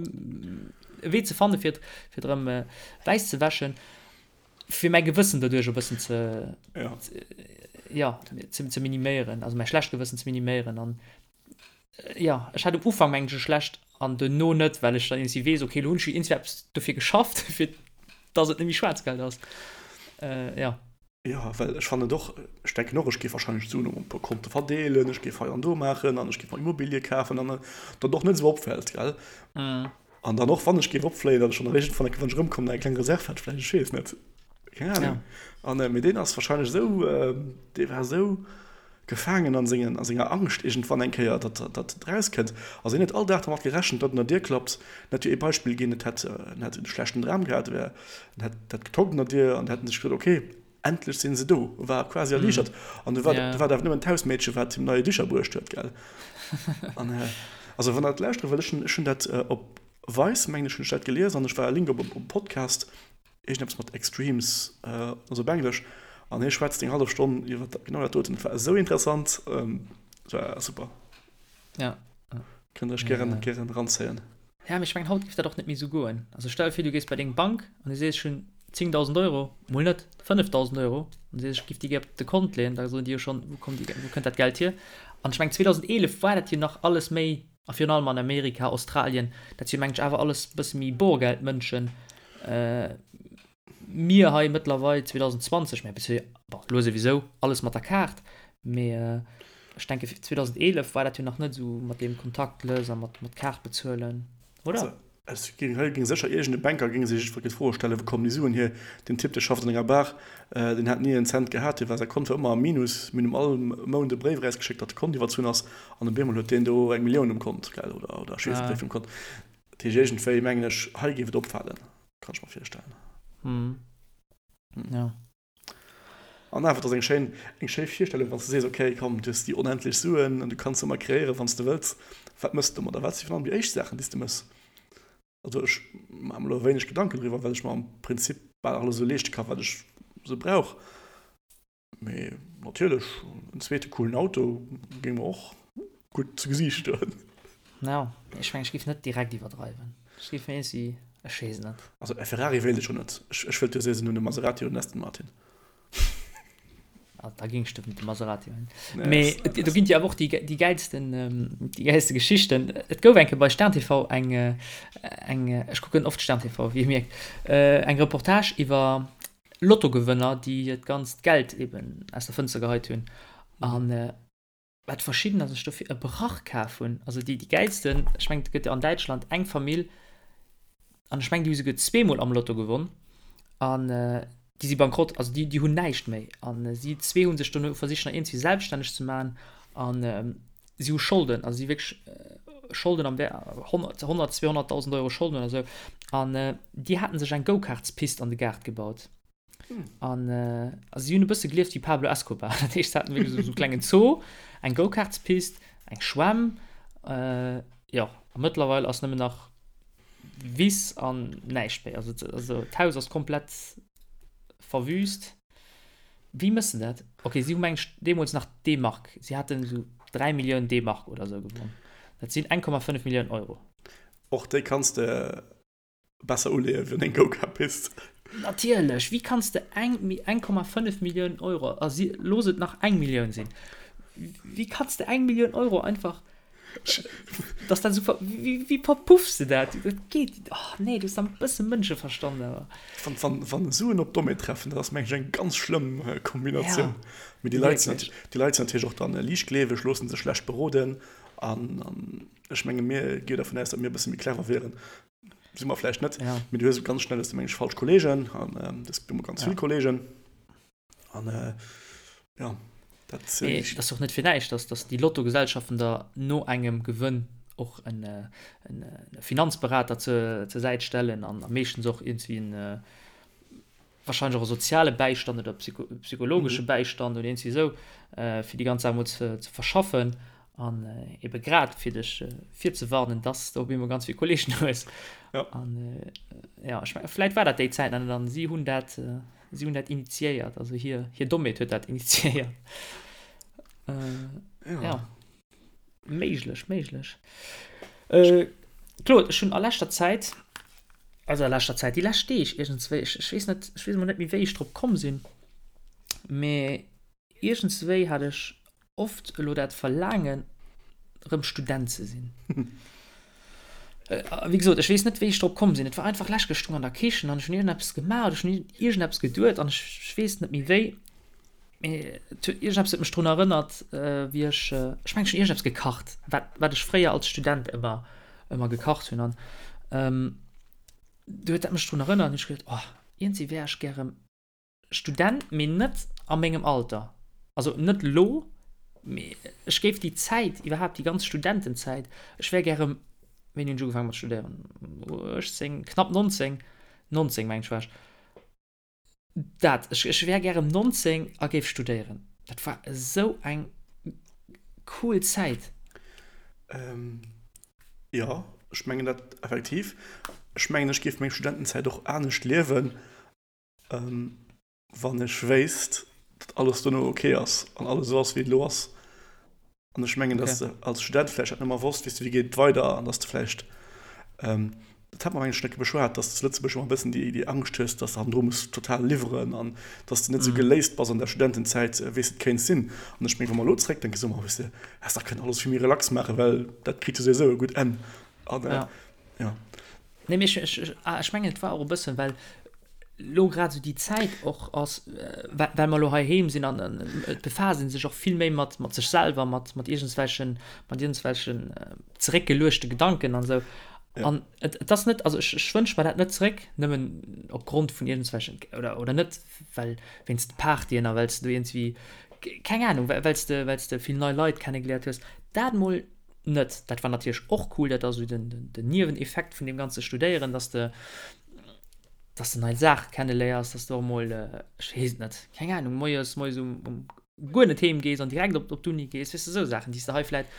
e Wee ze fanne fir et, fir et erëm wäiss ze wäschen, fir mäi Gewëssen doduerch e bëssen ze, Ja. jo, ze, ze miniméieren, also mäi schlecht Gewëssen ze miniméieren an jo, ech hat um Ufank mengen ech e schlecht an duerno net, well ech dann iergendwéi weess, okay, elo hunn ech jo iergendwéi eppes dofir geschafft, fir dass et net méi Schwaarzgeld ass. Jo. Jo, well ech fannen et och, ech denken och, ech géif warscheinlech d'Suen op e puer Konte verdeelen, ech géif hei an do maachen an ech géif mer Immobilie kafen an datt och net esou opfält, gell? An dann och, wann ech géif opfléien, datt ech dann eréischt wann ech erëmkommen, eng kleng Reserv hätt vläicht, ech weess net, keng Ahnung. An mee deen ass warscheinlech esou, dee war esou gefaangen an sengen, a senger Angscht iergendwann eng Kéier, datt datt et erauskënnt. Also hien huet all Dag dermat gerechent, datt un der Dier klappt. En hätt jo ee Beispill ginn, et hätt, en hätt e schlechten Dram gehat, wär, en hätt dat getockt un der Dier an hätt en sech gesot, okay, endlech sinn se do, war quasi erliichtert. An du war, du war dat awer nëmmen d'Hausmeedche wat him neie Dicher bruecht huet, gell. An also wann der dat lauschtere wëllt, ech hunn, ech hunn dat op Vice, mengen ech, hunn ech dat gelies an ech war e Link op e Podcast, Iergendeppes mat Extremes, also op Englesch, an hie schwätzt eng hallef Stonn iwwer genau dat doten. Et war esou interessant, et war super. Ja. Kënnt der iech gären, gären eranzéien. Ja, mee ech mengen, haut géif dat och net méi esou goen. Also stell der vir, du gees bei deng Bank an du sees, ech hunn 10.000 Euro, mol net, 5.000 Euro, an du sees, ech géif déi gär op de Kont leeën, da soen déi jo schonn, wou kommt déi, wou kënnt dat Geld hier? An ech mengen, 2011 war dat jo nach alles méi A virun allem an Amerika, Australien, dat si mengen ech awer alles e bësse méi Borgeldmënschen. Mir hei mëttlerweil 2020, mä bis bon, elo souwisou alles mat der Kaart, mee ech denke 2011 war dat jo nach net esou mat deem Kontaktless a mat Kaart bezuelen, oder? Et géing hei géing sécher iergend e Banker géing sech jiddwer d'Fro stellen, wou kommen déi Suen hier? Deen Typ, dee schafft an enger Bar, deen hat ni en Cent gehat, dee war säi Kont war ëmmer am Minus. Mir hunn him all Mount e Bréif erausgeschéckt, datt de Kont iwwerzunn ass, an op eemol huet deen do eng Millioun um Kont, gell, oder oder ech weess net wéi vill um Kont. Dat heescht iergendwéi mengen ech, hei géif et opfalen, kann ech mer virstellen. Jo. An awer, et ass eng schéin, eng schéi Virstellung, wann s de sees, okay, komm, du hues déi onendlech Suen an du kanns ëmmer kreéieren, wann s de wëlls. Wat mëss de domadder? Wat si virun allem déi éischt Saachen, déi s de mëss? Also ech maache mer elo wéineg Gedanken driwwer, well ech mer am Prinzip bal alles esou leeschte ka wat ech esou brauch. Mee natierlech, en zweete coolen Auto géing mer och gutt zu Gesiicht stoen. Ja, ech mengen, ech géif net direkt iwwerdreiwen. Ech géif mir iergendwéi, ech weess et net. Also e Ferrari wéilt ech jo net. Ech, ech wëllt jo soen, hunn e Maserati oder en Aston Martin. Ah, da géing ech de Maserati huelen. Nee, Mee et, do ginn et jo awer och déi, déi gäilsten, déi gäilste Geschichten. Et gouf eng Kéier bei Stern TV eng, eng, ech kucken oft Stern TV, wéi Dir mierkt, eng Reportage iwwer Lottogewënner, déi hiert ganzt Geld eben aus der Fënster geheit hunn. An wat verschiddener sech dofir e Brach kaf hunn, also déi déi gäilsten, ech mengen et gëtt jo an Däitschland eng Famill, an ech mengen déi hu souguer zweemol am Lotto gewonn, an déi si bankrott, also déi déi hunn näischt méi, an si zwee hu sech dono versicht nach iergendwéi selbststänneg ze maachen, an si hu Scholden, also si hu wierklech Scholden am Wäert 100, 200.000 Euro Scholden oder sou, an déi haten sech eng Go-Karts-Pist an de Gaart gebaut. An also si hunn e bësse gelieft wéi Pablo Escobar. Dat heescht, se haten wierklech esou e klengen Zoo, eng Go-Karts-Pist, eng Schwämm, jo, a mëttlerweil ass nëmmen nach Wiss an näischt méi. Also, also d'Haus ass komplett verwüst. Wéi mëss de dat? Okay, si hu meng ech deemools nach D-Mark, si haten esou 3 Milliounen D-Mark oder esou gewonn. Dat sinn 1,5 Milliounen Euro. Och déi kanns de Besser uleeën wéi an eng Go-Kart-Pist. Natierlech! Wéi kanns de eng 1,5 Millioun Euro, a si, looss et nach eng Millioun sinn, wéi kanns de eng Millioun Euro einfach, dass dat esou, wéi, wéi verpuffs de dat? Dat geet, oh nee, du hues dann e bësse Mënscheverstand awer. Wann, wann, wann Suen op Dommheet treffen, dat ass mengen ech eng ganz schlëmm Kombinatioun. Ja, Mee déi Leit sinn, déi Leit sinn natierlech och dann liichtgleeweg, loosse sech schlecht beroden an, an ech menge mir gi dervun aus, datt mir e bësse méi clever wieren. Si mer vläicht net, ja. Mee du hues ganz schnell hues du meng ech falsch Kollegen an ähm, das gibt immer ganz ja. vill Kollegen. An äh, ja, dat, äh, nee, das ist doch net fir näischt, dass, dass déi Lottogesellschaften da no engem Gewënn och en, äh, en, äh, Finanzberater zur, zur Säit stellen an am meeschtens och irgendwie en äh, wahrscheinlech och e soziale Bäistand oder psycho psychologesche mhm. Bäistand oder irgendwie sou, äh, fir déi ganz Saach mol ze, ze verschaffen an äh, ebe grad fir dech äh, virzewarnen, dass du op eemol ganz vill Kollegen hues. Ja. An äh, ja, ich mein, vläit war dat déi Zäit an dann si hunn dat äh, si hunn dat initiéiert, also hir hir Dommheet huet dat initiéiert. Äh, ja. ja. Méiglech, méiglech. Äh, Claude, ech hunn a leschter Zäit, also a leschter Zäit, déi lescht Deeg iergendswéi, ech, ech weess net, ech weess emol net méi, wéi ech drop komm sinn, mee. Iergendswéi hat ech oft elo dat Verlaangen, erëm Student ze sinn. Wéi gesot, ech weess net, wéi ech drop komm sinn. Et war einfach lech, ech stoung an der Kichen an ech hunn iergendeppes gemaach oder ech hunn iergendeppes geduet an ech weess net méi wéi, mee et huet, iergendeppes huet mech drun erënnert, wéi ech, ech mengen, ech hunn iergendeppes gekacht, wat, wat ech fréier als Student ëmmer, ëmmer gekacht hunn an du huet dat mech drun erënnert an hu ech geduet, oh, iergendwéi wär ech gär erëm Student, mee net a mengem Alter. Also net lo, mee ech géif déi Zäit, iwwerhaapt déi ganz Studentenzäit, ech wär gär rëm, wéini hunn ech ugefaange mat studéieren? 18, knapp 19, 19 mengen ech war ech. Dat, ech, ech wär gär rëm 19 a géif studéieren. Dat war esou eng cool Zäit. Jo, ech mengen dat effektiv. Ech mengen, ech géif meng Studentenzäit och anescht liewen. Wann ech wéisst, datt alles dono ok ass an alles esou ass, wéi et elo ass. An ech mengen, datt s de als Student vläicht dat net méi wosst, weess de, wéi geet et weider an datt s de vläicht, dat hat mer mengen ech schonn eng Kéier beschwat, datt s de zu Lëtzebuerg ëmmer e bëssen déi, déi Angscht hues, datt s de hannendru muss total liwweren an datt s de net esou geléist bass an der Studentenzäit, wéi s de et kéints sinn. An ech mengen, wa mer elo zeréckdenken, soe mer, weess de, häss dach kënnen alles vill méi relax maachen, well dat kritt jo souwisou e gutt Enn. An jo. Nee, mee ech, ech, ah, ech mengen, et war och e bëssen, well lo grad esou déi Zäit och ass, well, well mer lo heiheem sinn an et befaasst ee sech och vill méi mat, mat sech selwer, mat, mat iergendswelchen, mat iergendswelchen zeréckgeluechte Gedanken an esou. Ja. An et, et ass net, also ech, ech wënsch mer dat net zeréck, nëmmen opgrond vun iergendswelchen, oder, oder net well wéinst de Partyen a well s de do iergendswéi, keng Ahnung, well s de, well s de vill nei Leit kennegeléiert hues, dat mol net. Dat war natierlech och cool, dat ass esou den, den, den Nieweneffekt vun deem ganze Studéieren, dass de, dass de nei Saache kenneléiers, dass de och mol, ech weess et net, keng Ahnung, moies, moies um, um guer net heem gees an direkt op, op d'Uni gees, weess de, esou Saachen, déi s de hei vläit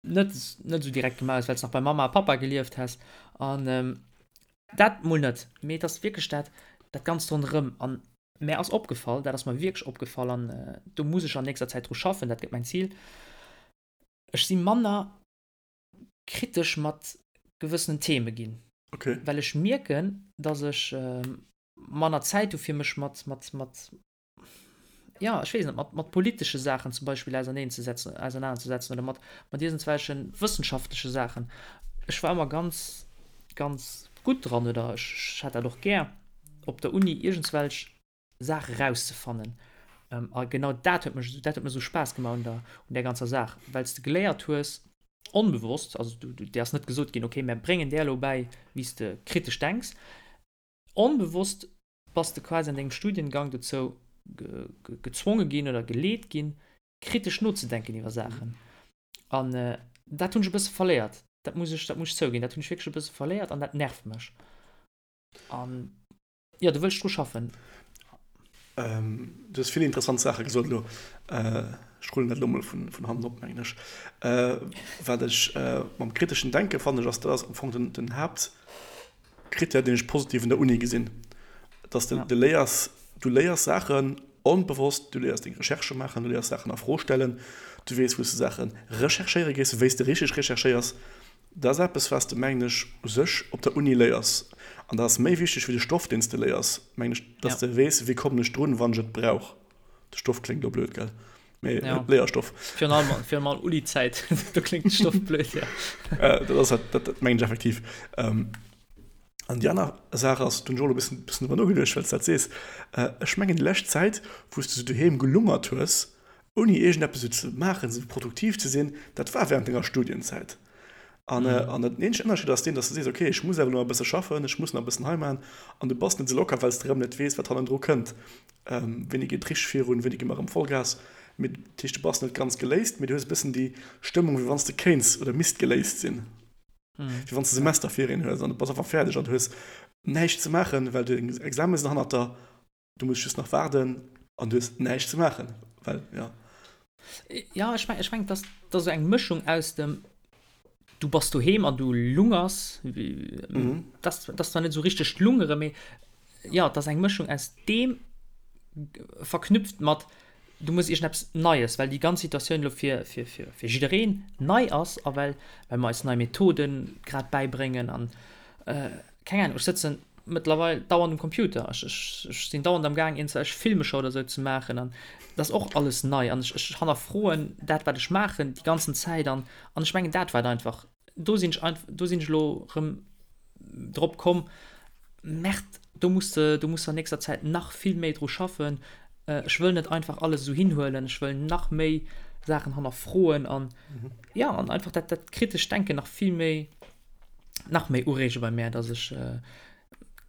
net, net esou direkt gemaach hues, well s nach bei Mamma a Pappa gelieft häss. An dat mol net, mee et ass wierklech dat, dat Ganzt ronderëm. An Mär ass opgefall, dat ass mer wierklech opgefall an do muss ech an nächster Zäit dru schaffen, dat gëtt mäin Zil, ech si manner kritesch mat gewëssenen Theme ginn. Okay. Well ech mierken, datt ech manner Zäit hu fir mech mat, mat, mat, jo, ech weess net, mat, mat politesche Saachen zum Beispill auserneenzesetzen, ausernanerzesetzen oder mat, mat iergendswelche wëssenschaftleche Saachen. Ech war ëmmer ganz, ganz gutt dran oder ech, ech hat dat och gär. op der Uni iergendswelch Saache rauszefannen. A genau dat huet mech, dat huet mir esou Spaass gemaach un der, un där ganzer Saach, well s de geléiert hues, onbewosst, also du, du, dir ass net gesot ginn, okay, mär bréngen där elo bäi, wéi s de kritesch denks. Onbewosst bass de quasi an dengem Studiengang dozou gezwonge ginn oder geleet ginn, kritesch nozedenken iwwer Saachen. An dat hunn ech e bësse verléiert. Dat muss ech, dat muss ech zouginn, dat hunn ech wierklech e bësse verléiert an dat nervt mech. An jo, do wëll ech dru schaffen. Ähm, du hues vill interessant Saache gesot elo. Ech rullen dat elo mol vun, vun hannen op, mengen ech. Äh, wat ech äh, mam kriteschen Denke fannen ech, ass, dat ass am Fong den, den Haaptkrittär, deen ech positiv un der Uni gesinn. Dass de, ja. de léiers, du léiers Saachen onbewosst, du léiers deng Recherchë maachen, du léiers Saachen a Fro stellen, du weess, wou s de Saache recherchéiere gees, wéi s de richteg recherchéiers. Dat ass eppes, wat s de, mengen ech, u sech op der Uni léiers. An dat ass méi wichteg wéi de Stoff, deen s de léiers, mengen ech, dass de weess, wéi kommen ech drun, wann ech et brauch. De Stoff kléngt elo blöd, gell? Mee ja. Léierstoff. Virun allem, virun allem Uni-Zäit, do kléngt de Stoff blöd, ja. Äh, dat ass halt, dat, dat mengen ech effektiv. Ähm, an déi aner Saach ass, do hunn ech och elo e bëssen, bëssen driwwer nogeduecht, well s de dat sees, äh, ech mengen, déi lescht Zäit, wou s de sou doheem gelungert hues, ouni iergendeppes esou ze maachen, esou produktiv ze sinn, dat war während denger Studienzäit. An, an den eenzegen Ënnerscheed ass deen, dass du sees, okay, ech muss awer elo nach e bësse schaffen, ech muss nach e bëssen hei maachen, an du bass net esou locker, well s de erëm net weess, wat hannendru kënnt. Wéini geet richteg virun, wéini gi mer erëm Vollgas? Mee dat heescht, du bass net ganz geléist, mee du hues e bëssen déi Stëmmung, wéi wann s de kéints oder misst geléist sinn, wéi wann s de Semesterferien hues an du bass einfach fäerdeg an du hues näischt ze maachen, well deng Examen sinn hannert der. Du muss just nach waarden an du hues näischt ze maachen, well ja. Ja, ech meng, ech meng, dass dass esou eng Mëschung aus dem du bass doheem an du lungers, mhm. das, das zwar net esou richteg lungere, mee ja, dass eng Mëschung aus deem verknüpft mat du muss iergendeppes Neies, well déi ganz Situatioun elo fir, fir, fir, fir jiddereen nei ass a well, well mer eis nei Methoden grad bäibréngen an äh, keng Ahnung, ech sëtzen. mëttlerweil dauernd um Computer. Ech, ech, ech sinn dauernd am Gaang iergendwelch Filmescher oder sou ze maachen an dat ass och alles nei an ech, ech hannerfroen dat wat ech maachen déi ganzen Zäit an an ech mengen dat war et einfach. Do sinn ech einf-, do sinn ech elo erëm drop komm, Merde, do muss de, do muss de an nächster Zäit nach vill méi dru schaffen. Ech wëll net einfach alles esou hinhuelen, ech wëll nach méi Saachen hannerfroen an jo, an einfach dat, dat kritescht Denken nach vill méi, nach méi ureege bei mär, dass ech,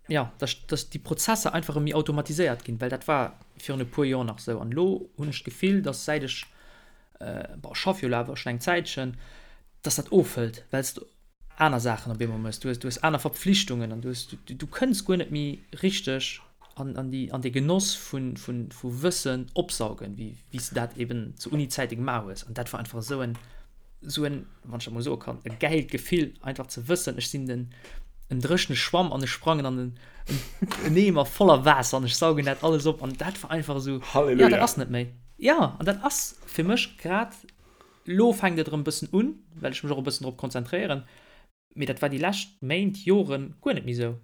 jo, dass, dass déi Prozesser einfach erëm méi automatiséiert ginn, well dat war virun e puer Joer nach esou an elo hunn ech d'Gefill, dass säit ech, bon, ech schaffe jo elo awer schonn eng Zäitchen, dass dat ofhëlt, well s de aner Saachen op eemol méchs, du hues, du hues aner Verpflichtungen an du hues, du, du kënns guer net méi richteg an, an déi, an dee Genoss vun, vun, vu Wëssen opsaugen, wéi, wéi s de dat eben zu Uni-Zäite gemaach hues. An dat war einfach esou en, esou en, wann ech dat mol soe kann, e gäilt Gefill, einfach ze wëssen, ech sinn den, en dréchene Schwamm an ech sprangen an en, en Eemer voller Waasser an ech saugen dat alles op an dat war einfach esou, Halleluja. Ja, dat ass net méi. Ja, an dat ass fir mech grad Lo fänkt et erëm e bëssen un, well ech mech och e bëssen drop konzentréieren, mee dat war déi lescht Méint, Joren guer net méi esou.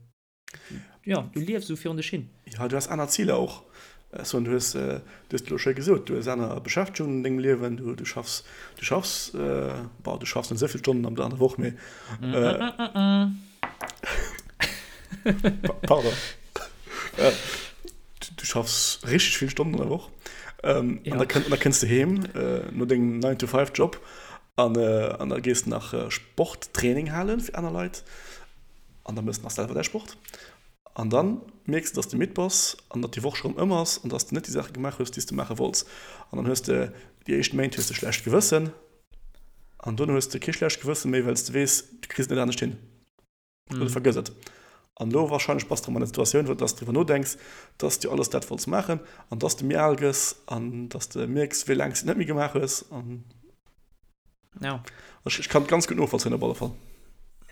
Jo, du liefs esou virun dech hin. Jo, du has aner Ziler och. Ech soen, du hues, du hues et elo schéi gesot, du hues aner Beschäftegungen an dengem Liewen, du, du schaffs, du schaffs, bon, du schaffs net esou vill Stonnen an der Woch, mee, pardon, du schaffs richteg vill Stonnen an der Woch. Ähm, ja. An da, kënn, da kënns du heem äh, no dengem 9-to-5-Job an, äh, an da gees du nach äh, Sporttraining halen fir aner Leit an da mëss du nach selwer däi Sport. An dann mierks du, dass du midd bass an datt déi Woch scho rëm ëm ass an dass du net déi Saache gemaach hues, déi s du maache wollts. An dann hues de déi éischt Méint hues de schlecht Gewëssen an dono hues de kee schlecht Gewësse méi, well s de weess, du kriss et net anescht hin. Oder vergëss et. An elo wahrscheinlech bass de erëm an der Situatioun, wou dass de driwwer nodenks, dass de jo alles dat wollts maachen an dass de méi al gëss an dass de mierks, wéi laang s de et net méi gemaach hues. An ja. Ech, ech kann et ganz gutt novollzéien op alle Fall.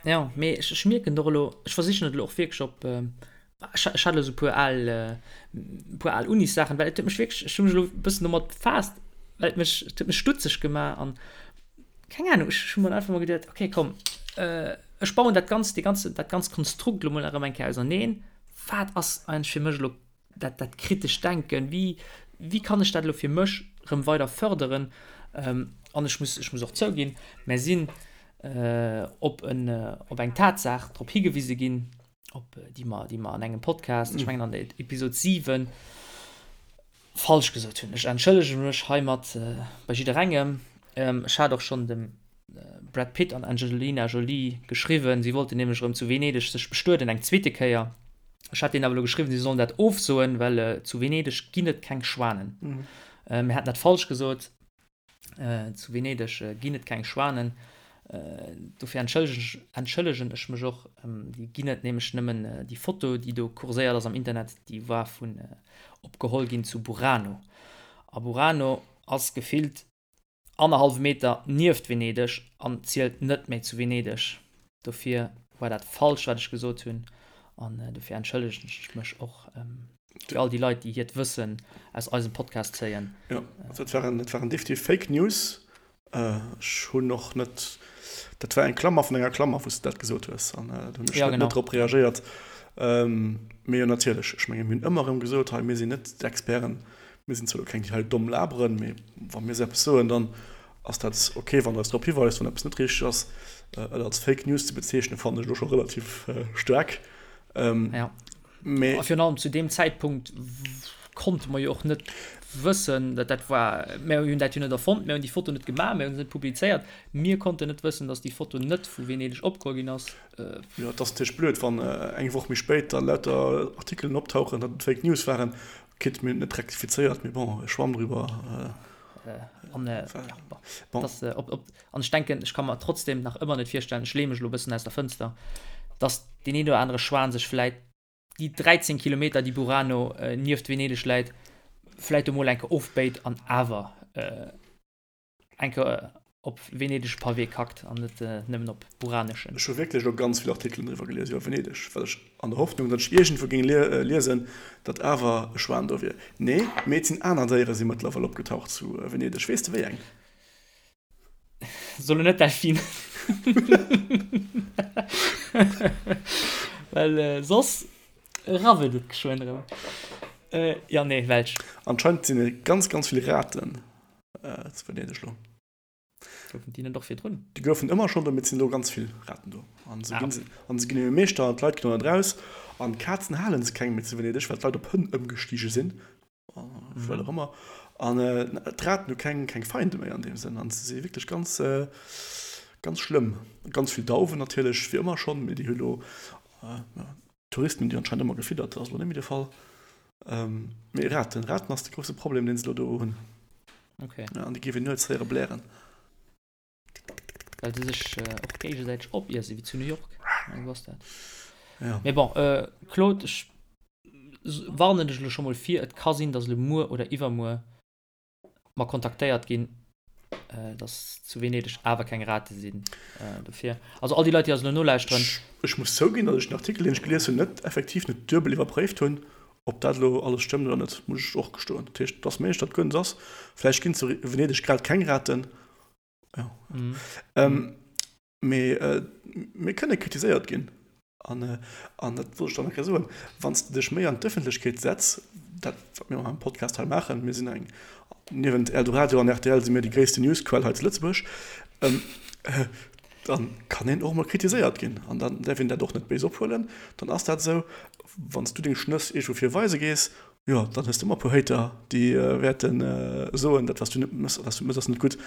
Ja, mee ech, ech mierken och elo, ech versichen et elo och wierklech op, ech, ech hat elo esou e puer al, e puer al Unissaachen, well et huet mech wierklech, ech hu mech elo e bëssen domat befaasst, well et mech, et huet mech stutzeg gemaach an keng Ahnung, ech hu mer einfach mol geduet, okay, komm, ech bauen dat ganz, dee ganze, dat ganz Konstrukt elo mol erëm eng Kéier auserneen. Wat ass eigentlech fir mech elo dat, dat kritescht Denken? Wéi, wéi kann ech dat elo fir mech erëm weider fërderen? An ech muss, ech muss och zouginn, mär sinn op en, op eng Tatsaach drop higewise ginn, op déi mer, déi mer an engem Podcast, ech mengen an der Episod 7, falsch gesot hunn. Ech entschëllege mech heimat bei jidderengem. Ech hat och schonn dem Brad Pitt an Angelina Jolie geschriwwen, si wollten nämlech erëm zu Venedeg sech bestueden, eng zweete Kéier. Ech hat deenen awer elo geschriwwen, si sollen dat ofsoen, well zu Venedeg ginn et keng Schwanen. Mir haten dat falsch gesot. Zu Venedeg ginn et keng Schwanen. Dofir entschëllegen ech mech och. Déi ginn et nämlech nëmmen. Déi Foto, déi do kurséiert ass am Internet, déi war vun opgeholl ginn zu Burano. A Burano ass gefillt annerhallwe Meter nieft Venedeg an zielt net méi zu Venedeg. Dofir war dat falsch, wat ech gesot hunn. An dofir entschëllegen ech mech och. Fir all déi Leit, déi hiert Wëssen aus eisem Podcast zéien. Jo, also et waren, et waren definitiv Fake News. Ech hunn och net, dat war eng Klammer vun enger Klammer, wou s de dat gesot hues, an do hunn ech net, net drop reagéiert. Mee jo, natierlech, ech menge mir hunn ëmmer erëm gesot hei, mir sinn net d'Experten, mir sinn zwar elo keng, déi hei domm laberen, mee wa mir esou eppes soen, dann ass dat ok, wann Der eis drop hiweist, wann eppes net richteg ass. Et als Fake News ze bezeechnen, fannen ech elo scho relativ staark. Jo. Mee. A virun allem zu deem Zäitpunkt konnte mer jo och net wëssen, dat dat war, mir hunn dat jo net erfonnt, mir hunn déi Foto net gemaach, mir hunn se net publizéiert, mir konnten net wëssen, datt déi Foto net vu Venedeg opgeholl ginn ass. Jo, et ass natierlech blöd, wann eng Woch méi spéit da lauter Artikelen optauchen, datt et Fake News waren. Quitte mir hunn et net rektifizéiert, mee bon, Schwamm driwwer. An, ja, bon, dat, op, op, an ech denken, ech ka mer trotzdem nach ëmmer net virstellen, ech leeë mech elo e bëssen aus der Fënster, datt deen een oder anere Schwan sech vläit déi 13 Kilometer, déi Burano nieft Venedeg läit, vläit emol eng Kéier ofbéit an awer eng Kéier op venedesche Pavé kackt an net nëmmen op buraneschen. Ech hu wierklech elo ganz vill Artikelen driwwer gelies iwwer Venedeg, well ech an der Hoffnung, datt ech iergendwou géing liesen, datt awer e Schwan do wier. Nee, mee et sinn aner Déiere si mëttlerweil opgetaucht zu Venedeg. Weess de wéi eng? Soll net Delfin. Well soss. Rabbelt et geschwënn erëm. Jo, nee, welch? Anscheinend sinn et ganz, ganz vill Raten zu Venedeg lo. Goufen déi net och virdrun? Déi goufen ëmmer schonn do, mee et sinn elo ganz vill Raten do. An se ginn, an se ginn ëmmer Meeschter an d'Leit ginn och net raus. An Kazen hale se keng méi zu Venedeg, well d'Leit op Hënn ëmgestige sinn, well och ëmmer. An d'Raten hu keng, keng Feinde méi an deem Sënn. An se si wierklech ganz, ganz schlëmm. Ganz vill Dauwen natierlech, wéi ëmmer schonn, mee déi hu lo, D'Touristen hunn déi anscheinend ëmmer gefiddert, dat ass elo net méi de Fall. Mee Raten, Raten ass de grousse Problem, deen se elo do hunn. Okay. Ja, an déi géif een nuets héiere blären. Well se sech och géigesäiteg opiesse wéi zu New York. Esou ass dat. Ja. Mee bon, Claude, ech warnen dech elo scho mol vir, et ka sinn, datt elo muer oder iwwermuer mer kontaktéiert ginn, dass zu Venedeg awer keng Rate sinn. Dofir, also all déi Leit, déi eis elo nolauschteren. Ech muss zouginn, datt ech den Artikel, deen ech gelies hunn, net effektiv net duebel iwwerpréift hunn, ob dat elo alles stëmmt oder net, muss ech och gestoen. Dat heescht, et ass méiglech, datt guer net ass. Vläicht ginn zu Venedeg grad keng Raten. Jo. Mee mir kënne kritiséiert ginn. An, an dat wollt ech dann nach eng Kéier soen, wann s de dech méi an d'Ëffentlechkeet setz, dat wat mir am Podcast hei maachen, mir sinn eng, niewent Eldoradio an rtl si mir déi gréisste Newsquell hei zu Lëtzebuerg, dann kann een och emol kritiséiert ginn. An dann däerf een dat och net béis ophuelen. Dann ass dat esou, wann s du deng Schnëss iergendwou virweise gees, jo, dann hues de ëmmer e puer Hater, déi wäerte soen, dat wat s du net mëss, wat s du mëss ass net gutt.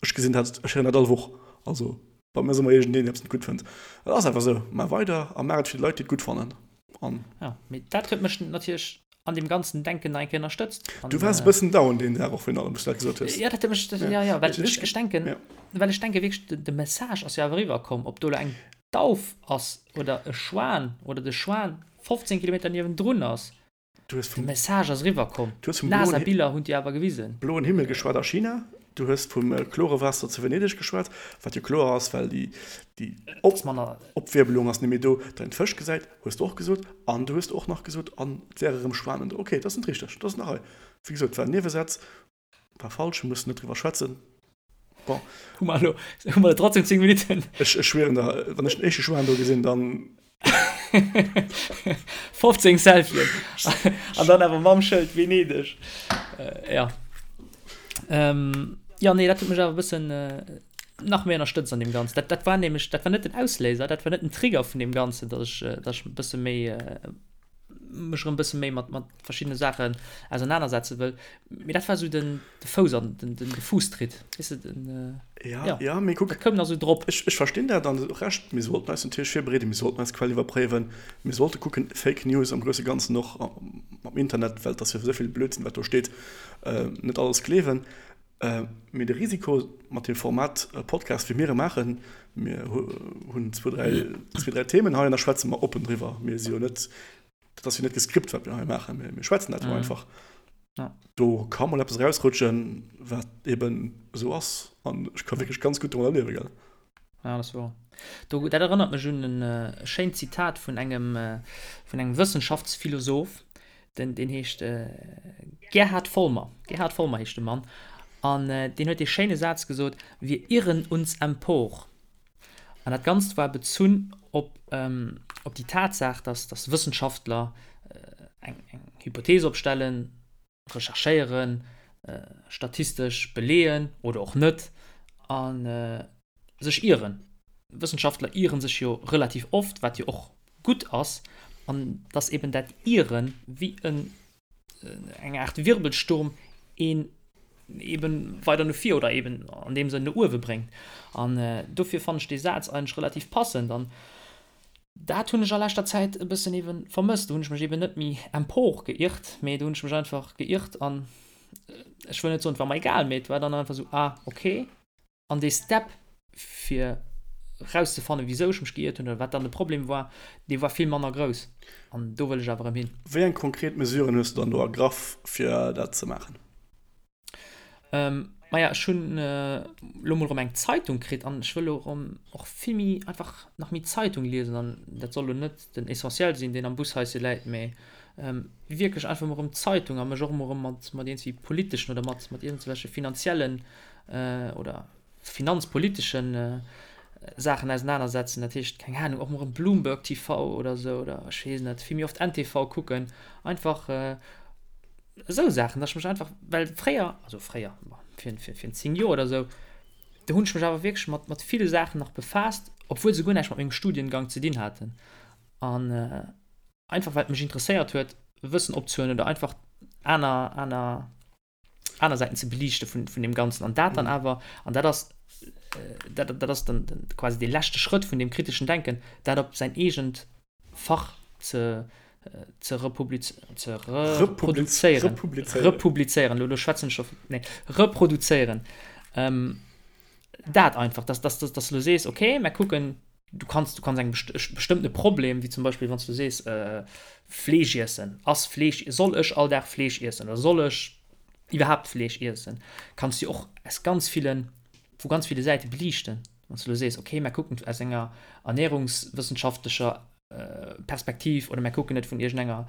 Ech gesinn dat, ech héieren dat all Woch. Also bei mir ass ëmmer iergendeen, deen eppes net gutt fënnt. Et ass einfach esou. Maach weider a maach et fir déi Leit, déi et gutt fannen. An. Ja, mee dat huet mech natierlech an deem ganzen Denken nach eng Kéier ënnerstëtzt. An, Du waars e bëssen down deen Dag och virun allem, wou s du dat gesot hues. Ja, dat huet mech, ja, ja, well ech, ech denken, well ech denke wierklech, de, de Message ass jo awer eriwwerkomm, ob do elo eng Dauf ass oder e Schwan oder de Schwan 15 Kilometer niewendrun ass. Du hues vum. De Message ass eriwwer komm. Du hues vum NASA-Biller hunn déi awer gewisen. Bloen Himmel geschwat a China. Du hues vum klore Waasser zu Venedeg geschwat, wat jo kloer ass, well déi, déi Opwierbelung ass net méi do, datt een d'Fësch gesäit, hues de och gesot. An du hues och nach gesot, an et wäre rëm Schwanen do. Okay, dat ass net richteg, dat ass nach hei. Wéi gesot, et war en Niewesätz. War falsch, mir mussen net driwwer schwätzen. Bon. Hu mer elo, hu mer trotzdem 10 Minuten. Ech, ech schwieren der, wann ech den éischte Schwan do gesinn, dann. 15 Selfien. An dann awer mam Schëld Venedeg. Äh, ja. Ähm, ja, nee, dat huet mech awer e bëssen äh, nach méi ënnerstëtzt an deem Ganzen. Dat, dat war nämlech, dat war net den Ausléiser, dat war net den Trigger vun deem Ganzen, dass ech, äh, dass ech e bësse méi äh, mech erëm bësse méi mat, mat verschiddene Saachen ausernanersetze wëll. Mee dat war sou den, de Fouss an den, den, de Fuusstritt. Weess de, den, äh, ja, ja, ja, mee kuck, dat koum nach sou drop. Ech, ech verstinn dat an och Recht. Mir sollten eis natierlech virbereeden, mir sollten eis Quell iwwerpréiwen, mir sollte kucken, Fake News am grousse Ganzen och am Internet, well et ass jo esou vill Blödsinn, wat do steet, äh, net alles gleewen. Mee de Risiko mat deem Format Podcast, wéi mir e maachen, mir hunn zwou, dräi, zwee, dräi Themen hei an da schwätze mer oppen driwwer. Mir si jo net, dat ass jo net geskript, wat mir hei maachen, mir schwätzen dat jo einfach. Do ka mol eppes erausrutschen, wat eben esou ass. An ech ka wierklech ganz gutt domadder liewen, gell. Ja, dat ass wouer. Do, dat erënnert mech un en schéint Zitat vun engem, vun engem Wëssenschaftsphilosoph, den, deen heescht Gerhard Vollmer. Gerhard Vollmer heescht de Mann. An deen huet dee schéine Saz gesot, Wir irren uns empor. An dat Ganzt war bezunn op, op déi Tatsaach, dass, dass Wëssenschaftler eng, eng Hypothees opstellen, recherchéieren, statistesch beleeën oder och net a sech ieren. Wëssenschaftler iere sech jo relativ oft, wat jo och gutt ass, an dass eben dat Ieren wéi en eng Aart Wirbelsturm een eben weider no vir oder eben an deem Sënn no uewe bréngt. An dofir fannen ech dee Saz eigentlech relativ passend an Dat hunn ech a leschter Zäit e bëssen eben vermësst. Do hunn ech mech eben net méi empor geirrt, mee do hunn ech mech einfach geirrt an ech wëll net soen, et war mer egal, mee et war dann einfach esou, ah okay. An dee Step fir rauszefannen, wisou ech mech geirrt hunn oder wat dann de Problem war, dee war vill manner grouss. An do wëll ech awer erëm hin. Wéi eng konkret Mesuren hues du dann do ergraff, fir dat ze maachen? Ähm, maja, ech hunn elo mol erëm eng Zeitung kritt an ech wëll elo erëm och vill méi einfach nach méi Zeitung liesen an dat soll elo net den Essentiel sinn, deen am Bushaische läit, mee wierklech einfach mol erëm Zeitung a mech och emol erëm mat mat iergendwéi politeschen oder mat mat iergendwelche finanziellen oder finanzpoliteschen. Saachen ausenanersetzen. Dat heescht, keng Ahnung, och mol erëm Bloomberg TV oder esou oder ech weess net, vill méi oft NTV kucken. Einfach esou Saachen, dass ech mech einfach, well fréier, also fréier, bon, vir, vir, vir 10 Joer oder esou, do hunn ech mech awer wierklech mat, mat ville Saachen nach befaasst, obwuel se guer näischt mat mengem Studiengang ze dinn haten. An einfach well et mech interesséiert huet, Wëssen opzehuelen oder einfach aner, aner, aner Säiten ze beliichte vun, vun deem Ganzen. An dat dann awer, an dat ass, dat, dat ass dann quasi dee leschte Schrëtt vun deem kriteschen Denken, dat op säin eegent Fach ze, ze republiz, ze reproduzéieren. Republizéieren. Republizéieren, elo, elo schwätzen ech scho, nee, reproduzéieren. Ähm, dat einfach, dass, dass, dass, dass du elo sees, okay, mer kucken, du kanns, du kanns eng best bestëmmtene Problem, wéi zum Beispill wann s du sees, Fleesch iessen, ass Fleesch, soll ech all Dag Fleesch iessen oder soll ech iwwerhaapt Fleesch iessen, kanns du och aus ganz villen, vu ganz ville Säite beliichten. Wann s du elo sees, okay, mer kucken aus enger ernährungswëssenschaftlecher Perspektiv oder mer kucken et vun iergendenger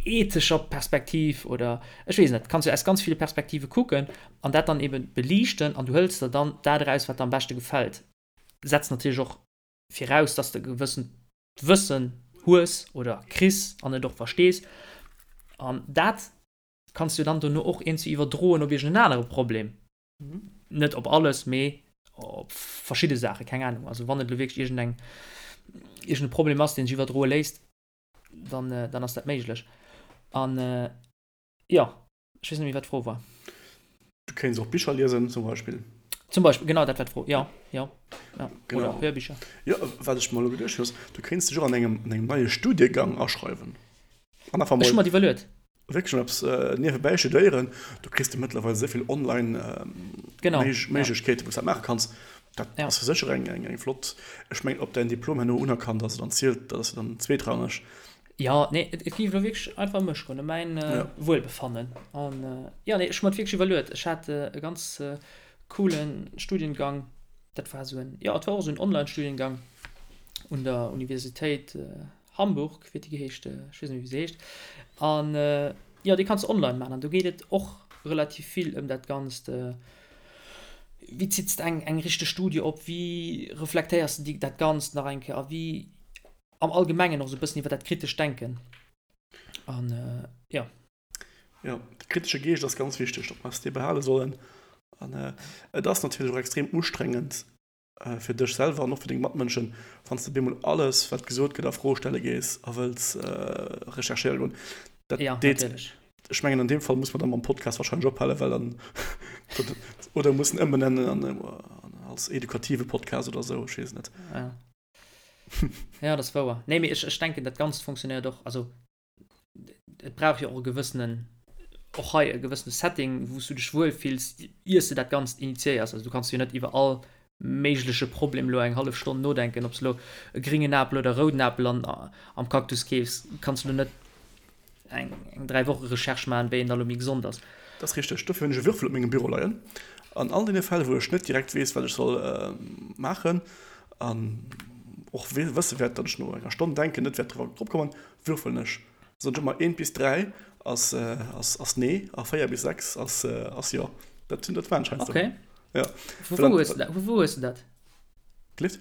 ethescher Perspektiv oder ech weess net, kanns du aus ganz ville Perspektive kucken an dat dann eben beliichten an du hëls der dann dat eraus, wat der am beschte gefält. Setzt natierlech och viraus, dass de e gewëssent Wëssen hues oder kriss an et och verstees an dat kanns du dann dono och iergendwéi iwwerdroen op iergend en anere Problem. Net op alles, mee op verschidde Saachen, keng Ahnung. Also wann et elo wierklech iergendeng, iergende Problem ass, deen sech iwwerdroe léisst, dann, dann ass dat méiglech. An jo, ech weess net méi, wat d'Fro war. Du kéints och Bicher liesen, zum Beispill. Zum Beispill, genau, dat war d'Fro, jo, jo, jo. Genau. Oder Hörbicher. Jo, wat ech mer elo geduecht hunn, ass, du kéints dech och an engem, an engem neie Studiegang aschreiwen. An einfach mol. Ech hu mer et iwwerluet. Wierklech mol eppes niewebäi studéieren. Do kriss de mëttlerweil esou vill online Méiglechkeeten, wou s dat maache kanns. Dat ass jo sécher eng flott. Ech mengen, ob däin Diplom herno unerkannt ass oder zielt, dat ass jo dann zweetrangeg. Jo, nee, et géif elo wierklech einfach ëm mech goen, ëm mäin Wuelbefannen. An jo, nee, ech hu mer et wierklech iwwerluet. Ech hat e ganz coole Studiengang. Dat war esou en, jo, et war och esou en Online-Studiengang un der Universitéit Hamburg, wéi huet déi geheescht? Ech weess net méi, wéi se heescht. An jo, dee kanns de online maachen. An do geet et och relativ vill ëm dat Ganzt, wéi zitts de eng, eng richteg Studie op, wéi reflektéiers de déi, dat Ganzt nach eng Kéier a wéi am Allgemengen och esou e bëssen iwwer dat kritescht Denken. An jo. Jo, de kritesche Geescht ass ganz wichteg, datt mer eis dee behale sollen. An et ass natierlech och extrem ustrengend, fir dech selwer an och fir deng Matmënschen, wann s de bemol alles, wat gesot gëtt, a Fro stelle gees a wëlls recherchéiere goen. Dat ja, deet, natierlech. Ech mengen, an deem Fall muss mer da mam Podcast wahrscheinlech ophalen, well dann, oder mussen ëmbenennen an, als edukative Podcast oder esou, ech weess et net. Ja, ja dat ass wouer. Nee, mee ech, ech denken, dat Ganzt funktionéiert och, also et brauch jo och e gewëssenen, och hei e gewëssene Setting, wou s du dech wuel fills, iers de dat Ganzt initiéiers. Also du kanns jo net iwwer all méigleche Problem elo eng hallef Stonn nodenken, ob s elo e gringen Apel oder e rouden Apel an, am Cactus keefs, kanns du elo net eng, eng 3 Woche Recherche maachen, wéi een da elo méi gesond ass. Dat ass richteg. Dofir hunn ech e Würfel op mengem Büro leien. An all deene Fäll, wou ech net direkt weess, wat ech soll maachen an och wësse wäert, datt ech no enger Stonn Denken net wäert drop kommen, Würfelen ech. Soen ech ëmmer 1 bis 3 ass ass nee a 4 bis 6 ass ass jo. Dat hunn dat waren ech heiansdo. Okay. Ja. Vu wou hues de dat? Vu wou hues de dat? Gelift?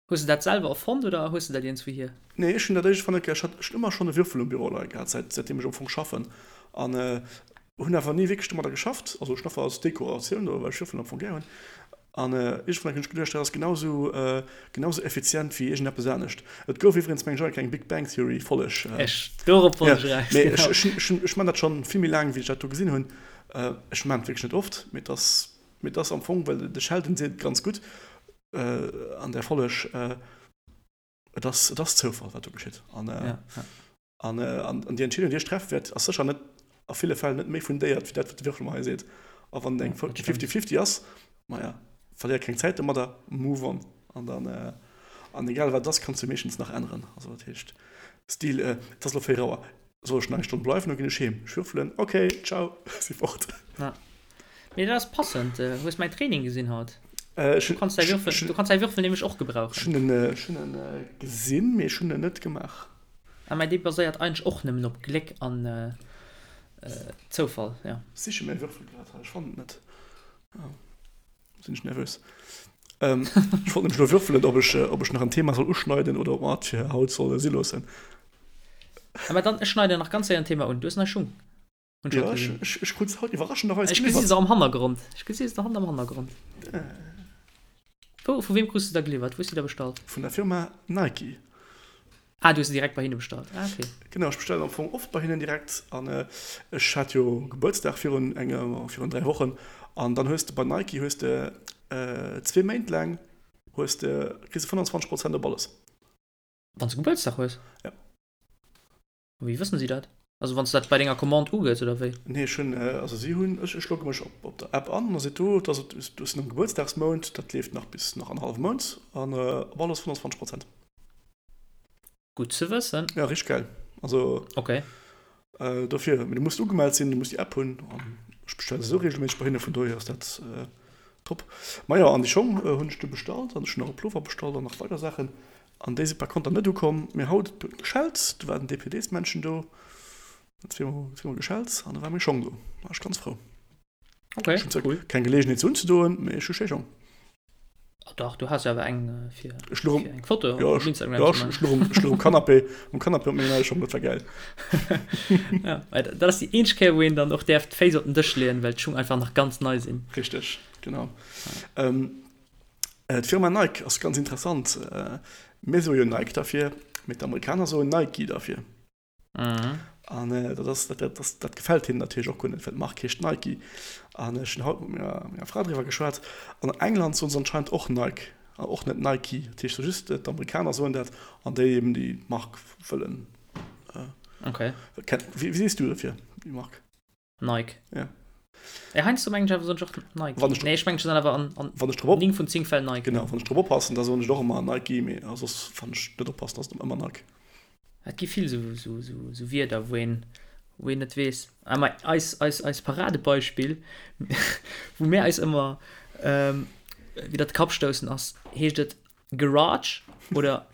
Hues de dat selwer erfonnt oder hues de dat iergendswou hier? Nee, ech hunn dat éischt fonnt, ech hat ech hunn ëmmer schonn e Würfel um Büro leie gehat, säit säitdeem ech am Fong schaffen an hunn awer ni wierklech domadder geschafft. Also ech hunn einfach als Dekoratioun do, well ech Würfelen am Fong gär hunn. An iergendwann hunn ech geduecht, dat ass genau sou, genau sou effizient wéi iergendeppes anescht. Et gouf iwwregens, mengen ech, och eng Big Bang Theory Folleg. Ech, dorop wollt ech eraus, genau. Mee ech, ech, ech man dat schonn vill méi laang, wéi ech dat do gesinn hunn. Ech man et wierklech net oft, mee et ass, mee et ass am Fong, well de Sheldon seet et ganz gutt an där Folleg, Et ass, et ass Zoufall, wat do geschitt. An, ja, ja. an, an, an déi Entscheedung, déi ech treffe wäert, ass sécher net a ville Fäll net méi fundéiert wéi dat, wat de Würfel mer hei seet. A wann eng 50-50 ass, maja, verléier keng Zäit domadder, move on. An dann, äh, an egal wat et ass, kanns du meeschtens nach änneren. Also dat heescht, Stil, äh, et ass elo 4 Auer, soll ech nach eng Stonn bleiwen oder ginn ech heem? Ech würfelen, okay, ciao, si fort. Ja. Mee dat ass passend. Hues mäin Training gesinn haut? Du kanns däi Würfel, du kanns däi Würfel nämlech och gebrauchen. Ech hunn en, ech hunn en gesinn, mee ech hunn en net gemaach. Ah, mä dee baséiert eigentlech och nëmmen op Gléck an Zoufall, jo. Ech siche mäi Würfel grad hei, ech fannen et net. Oh, sinn ech nervös. Ähm, ech wollt nämlech elo würfelen, ob ech, ob ech nach en Thema soll uschneiden oder ob mer et fir haut solle si loossen. Awer dann, ech schneiden nach ganz séier en Thema un. Du hues nei Schung. Hunn ech haut Ja, ech, gesinn. ech, ech krut se haut iwwerraschenderweis Ech gesi geliwwert. se am Hannergrond. Ech gesi se haut am Hannergrond. Wou, vu wem krus de da geliwwert? Wou hues du déi da bestallt? Vun der Firma Nike. Ah, du hues se direkt bei hinne bestallt. Ah, okay. Genau, ech bestellen am Fong oft bei hinnen direkt. An ech hat jo Gebuertsdag virun enger, virun 3 Wochen. An dann hues de bei Nike hues de zwee Méint laang hues de, kriss de 25 Prozent op alles. Wann s de Gebuertsdag hues? Ja. A wéi wëssen si dat? Also wann s de dat bei denger Commande ugëss, oder wéi? Nee, ech hunn, also si hunn, ech, ech logge mech op, op der App an, da seet do, dass et, du hues en Gebuertsdagsmount, dat leeft nach bis nach an hallwem Mount, an op alles 25 Prozent. Gutt ze wëssen. Ja, richteg gäil. Also. Okay. Dofir, mee du muss ugemellt sinn, du muss déi App hunn, an ech bestelle esou regelméisseg bei hinne, vun dohier ass dat top. Majo, an déi Schong hunn ech du bestallt, an ech hunn och e Plover bestallt an nach weider Saachen. An déi si par konter net ukomm. Mee haut huet et geschellt, do war den DPDs-Männchen do, huet zweemol geschellt an da war meng Schong do. War ech ganz frou. Okay, Ech hunn zwar cool. keng Geleegenheet se unzedoen, mee ech hu schéi Schong. Ah dach, du has jo awer eng fir, Ech luch um, fir eng Foto ja, op ech, Instagram ja, ze ech, man. ech luch um, ech luch um Canapé, um Canapé op menge neie Schong, dat war gäil. Ja, well dat ass déi eenzeg Kéier, wou een dann och däerf d'Féiss op den Dësch leeën, well d'Schung einfach nach ganz nei sinn. Richteg, genau. Ähm, D'Firma Nike ass ganz interessant. Mir soe jo Nike derfir, mee d'Amerikaner soen Nike derfir. An dat ass, dat, dat, dat gefält hinnen natierlech och guer net, well d'Mark heescht Nike. An ech hunn haut mat menger, menger Fra driwwer geschwat. An England soen se anscheinend och Nike an och net Nike. Dat heescht just d'Amerikaner soen dat an déi eben, déi d'Mark wëllen. Okay. Wéi sees du derfir, déi Mark? Nike. Ja. Ja, heiansdo mengen ech awer soen ech och Nike. Wann ech Nee, ech mengen ech soen awer an, an wann ech drop op 9 vun 10 Fäll Nike. Genau, wann ech drop oppassen, da soen ech och ëmmer Nike, mee soss wann ech net oppassen, ass et ëmmer Nike. Et gi vill sou, sou, sou, sou Wierder, wou een, wou een net weess. Ah, ma eis, eis, eis Paradebeispill, wou mir eis ëmmer ähm, widder de Kapp stoussen, ass, heescht et Garage oder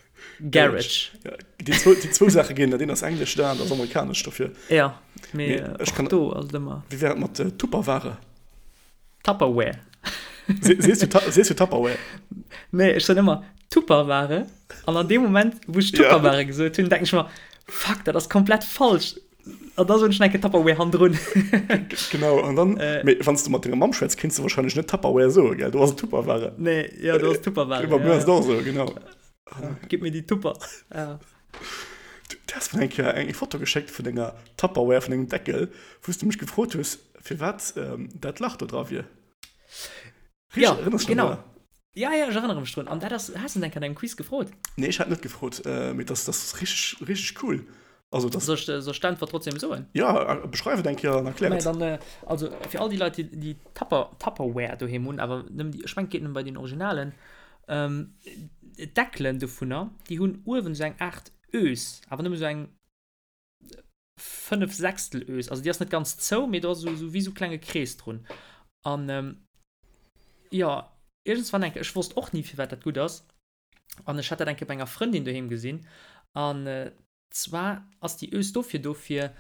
Garage? Ja, déi zwou, déi zwou Saache ginn, dat eent ass englesch, dat anert ass amerikanesch dofir. Ja, mee Mee ech kann, do ass et ëmmer. Wéi wär et mat Tupperware? Tupperware. Se, sees du, sees du Tupperware? Nee, ech soen ëmmer Tupperware an an deem Moment, wou ech Tupperware ja. gesot hunn, denken ech mer, fuck, dat ass komplett falsch. An da soen ech nach eng Kéier Tupperware hannendrun. Genau, an dann, äh, mee wann s du mat denger Mamm schwätz, kéints du wahrscheinlech net Tupperware soen, gell? Do ass et Tupperware. Nee, ja, do ass Tupperware. Bei mir ass et och esou, genau. Ja, gib mir die Tupper. Ja. Du, du has mir eng Kéier eng Foto geschéckt vun denger Tupperware, vun dengem Deckel, wou s du mech gefrot hues, firwat ähm, dat Lach do dra wier. Richtig, ja, erinnerst du genau. Drun? Ja, ja, ech erënnere mech drun. An dat ass, has du enk an engem Quiz gefrot? Nee, ech hat net gefrot, äh, mee das, das ass richtig, richtig cool. Also, das soll ich, soll ich d'Äntwert trotzdem soen? Ja, beschreif et eng Kéier an erklär et. Dann, äh, also fir all déi Leit, déi, déi Tupper, Tupperware doheem hunn, awer nëmmen déi, ech mengen, et geet nëmmen bei den Originalen, ähm, d'Deckelen dovunner, déi hunn uewen esou eng Aart Ös, awer nëmmen esou eng 5 Sechstel Ös, also déi ass net ganz zou, mee do ass esou wéi esou klenge Krees drun. An ähm, jo, iergendswann eng Kéier, ech wosst och ni firwat dat gutt ass, an ech hat dat eng Kéier bei enger Frëndin doheem gesinn, an äh, zwar ass déi Ös dofir do fir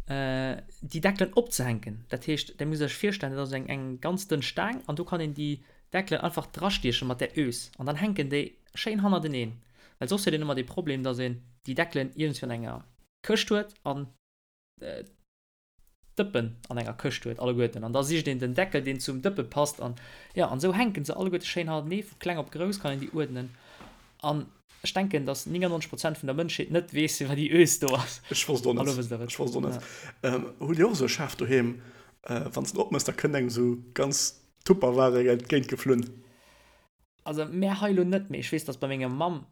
äh, déi Deckelen opzehänken. Dat heescht, där musst Iech virstellen, dat ass eng eng ganz dënn Staang an do kann een déi Deckelen einfach drastieche mat där Ös an dann hänken déi schéin hannerteneen. Well soss huet een ëmmer dee Problem, dass een déi Deckelen iergendwéi an enger Këscht huet an d'Dëppen an enger Këscht huet, alleguerten. An da sicht een den Deckel, deen zum Dëppe passt. An jo, an esou hänke se alleguerte schéin hannertenee. Vu kleng op grouss kann een déi uerdnen. An ech denken, dass 99 Prozent vun der Mënschheet net weess, firwat déi Ös do ass. Ech wosst och net. Elo wësst der et. Ech wosst och net. Hutt Dir och esou e Schaf doheem, wann s de en opmëss, da kënnt engem esou ganz Tupperware entgéint geflunn? Also mär hei elo net, mee ech weess, dass bei menger Mamm,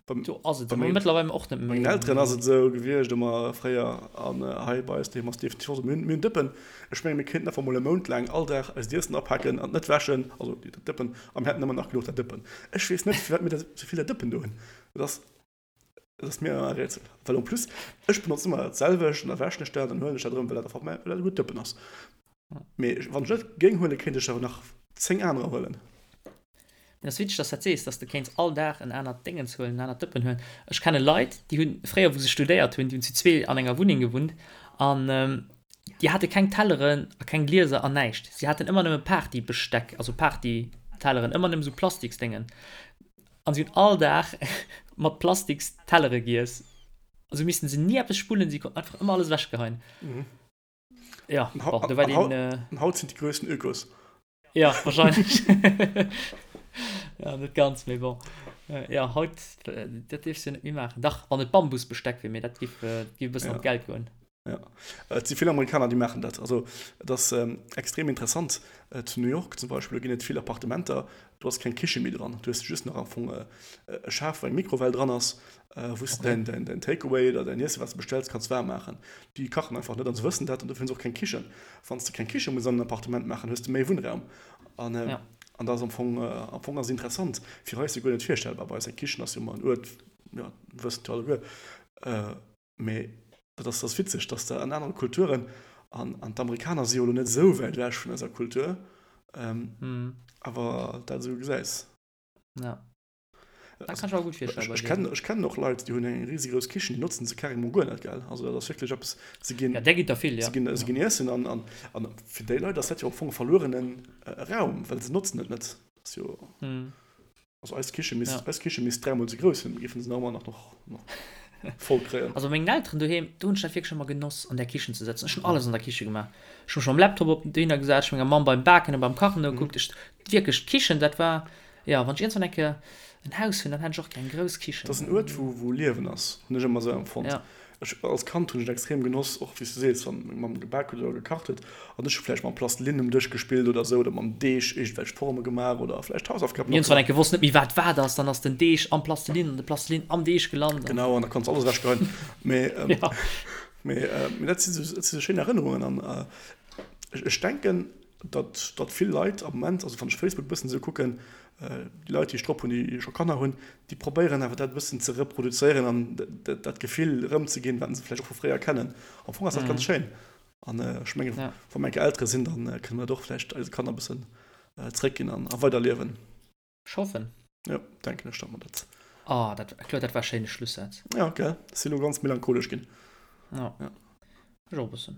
do ass et esou, mee mëttlerweil och net méi. Bei mengen Elteren ass et esou gewiescht ëmmer fréier an hei bei eis doheem ass et definitiv och esou. Mir hunn, mir hunn Dëppen, ech menge mir kéinten einfach mol e Mount laang all Dag eist Iessen apaken an et net wäschen, also déi Dëppen, a mir hätten ëmmer nach genuch der Dëppen. Ech weess net, firwat mir da sou vill der Dëppen do hunn. Et ass, et ass mir e Rätsel, well en plus ech benotzen ëmmer dat selwecht an da wäschen ech dat an huelen ech dat erëm, well dat einfach mäi, well dat e gutt Dëppen ass. Mee wann ech net géing huelen, kéint ech awer nach 10 anerer huelen. Mee ass witzeg, dass dat sees, dass de kéints all Dag en anert Déngens huelen, en anert Dëppen huelen. Ech kenne Leit, déi hunn fréier, wou se studéiert hunn, déi hunn zu zwee an enger Wunneng gewunnt an déi hate keng Telleren a keng Glieser an näischt. Si haten ëmmer nëmme Partybesteck, also Party. Telleren, ëmmer nëmme sou Plastiksdéngen. An si hunn all Dag mat Plastikstellere giess. Also missten se ni eppes spullen, si konnten einfach ëmmer alles ewechgeheien. Mhm. Ja, An, hau bon, do war an, hau deen. Äh, an haut sinn déi grössten Ökos. Ja, wahrscheinlech. Ja, net ganz, mee bon. Äh, ja, haut, äh, dat dierfs du jo net méi maachen. Dach, wann et Bambusbesteck wier, mee dat giff, äh, dat giff e bëssen Ja. an d'Geld goen. Ja. Et si vill Amerikaner, déi maachen dat. Also et ass extrem interessant. Zu New York zum Beispill, do ginn et vill Appartementer, do ass keng Kiche méi dran. Du hues just nach am Fong e Schaf, wou eng Mikrowell dran ass, wou s de däin, däin Takeaway oder däin Iesse wat s de bestells, kanns waarm maachen. Déi kachen einfach net an se wëssen dat an dofir hunn se och keng Kichen. Wann s de keng Kiche muss an en Appartement maachen, hues de méi Wunnraum. An an dat ass am Fong, am Fong ass et interessant. Fir eis jo guer net virstellbar. Bei eis eng Kichen ass jo ëmmer en Uert, jo, wëssen jo alleguer. Mee dat ass, ass witzeg, dass der an anere Kulturen, an, an d'Amerikaner si jo elo net esou wäit ewech vun eiser Kultur, ähm, awer dat esou gesäis. Ja. Dat kann ech mer gutt virstellen bei Ech kennen, ech kennen och Leit, déi hunn eng risigrouss Kichen, déi notzen se carrément guer net, gell? Also dat ass wierklech eppes, se ginn, Ja, där ginn der vill, ja. se ginn, se ginn iessen an, an, an fir déi Leit ass dat jo am Fong e verluerene Raum, well se notzen et net. Dat ass jo. Also eis Kiche misst, ja. eis Kiche misst dräimol sou grouss sinn, mir géifen se nach ëmmer nach, nach voll kréien. Also bei mengen Elteren doheem, do hunn ech dat wierklech ëmmer genoss, an där Kichen ze sëtzen. Ech hunn alles an der Kiche gemaach. Ech hu mech mam Laptop op dohinner gesat, ech hu menger Mamm beim Baken a beim Kachen nogekuckt. Ech, wierklech, d'Kichen, dat war, jo, wann ech iergendwann eng Kéier en Haus hunn, dann hätt ech och gär eng grouss Kichen. Dat ass en Uert, wou, wou Liewen ass, hunn ech ëmmer sou empfonnt. Ja. Ech, als Kand hunn ech et extrem genoss, och wéi s du sees, wann meng Mamm gebak huet oder gekacht huet an ech hu vläicht mam Plastelin um Dësch gespillt oder esou oder mam Deeg iergendwelch Forme gemaach oder vläicht Hausaufgaben nach Iergendwann eng Kéier wosst net méi wat wat ass, dann ass den Deeg am Plastelin an de Plastelin am Deeg gelant an. Genau, an da konns alles ewechgeheien. Mee, mee, mee dat si sou, dat si sou schéin Erënnerungen an ech, ech denken, datt, datt vill Leit am Moment, also wann ech Facebook e bëssen esou kucken, déi Leit, déi ech drop hunn, déi scho Kanner hunn, déi probéieren awer dat e bëssen ze reproduzéieren an dat Gefill erëmzeginn, wat se vläicht och vu fréier kennen. Am Fong ass dat ganz schéin. An ech mengen, wa mer eng Kéier Eltere sinn, da kënne mer dat och vläicht eise Kanner e bëssen zréckginn an a weiderliewen. Ech hoffen. Jo, denken ech, datt mer dat. Oh, dat, Claude, dat war e schéine Schlussaz. Ja, gell? Ech sinn elo ganz melancholesch ginn. Ja. Ja. Ech och e bëssen.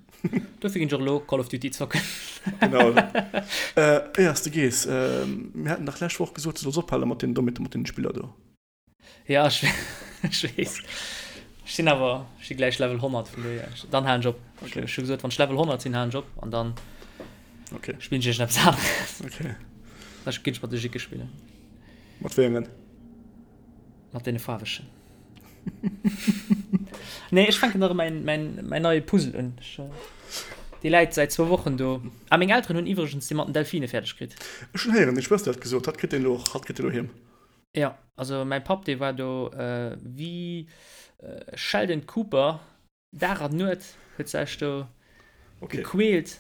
Dofir ginn ech och elo Call of Duty zocken. Genau. Äh, éiers de gees, äh, mir haten dach lescht Woch gesot, du solls ophale mat den, domat, mat den Spiller do. Ja, ech, ech weess. Ech sinn awer, ech si gläich Level 100, vun dohier, dann halen ech op. Okay. Ech hu gesot, wann ech Level 100 sinn, halen ech op an dann Okay. spillen ech iergendeppes aneres. Okay. Da ginn ech mat de Jicke spillen. Mat wéi engen? Mat deene faarwegen. Nee, ech fänken nach mäin, mäin, mäin neie Puzzle un. Ech, dee läit säit zwou Wochen do. Ah, meng Elteren hunn iwwregens dee mat den Delfine fäerdeg kritt. Ech hunn héieren, deng Schwëster huet gesot, hatt kritt deen elo, hatt kritt deen elo heem. Jo, also mäi Papp, dee war do wéi Sheldon Cooper, Dag an Nuet huet sech do gequält.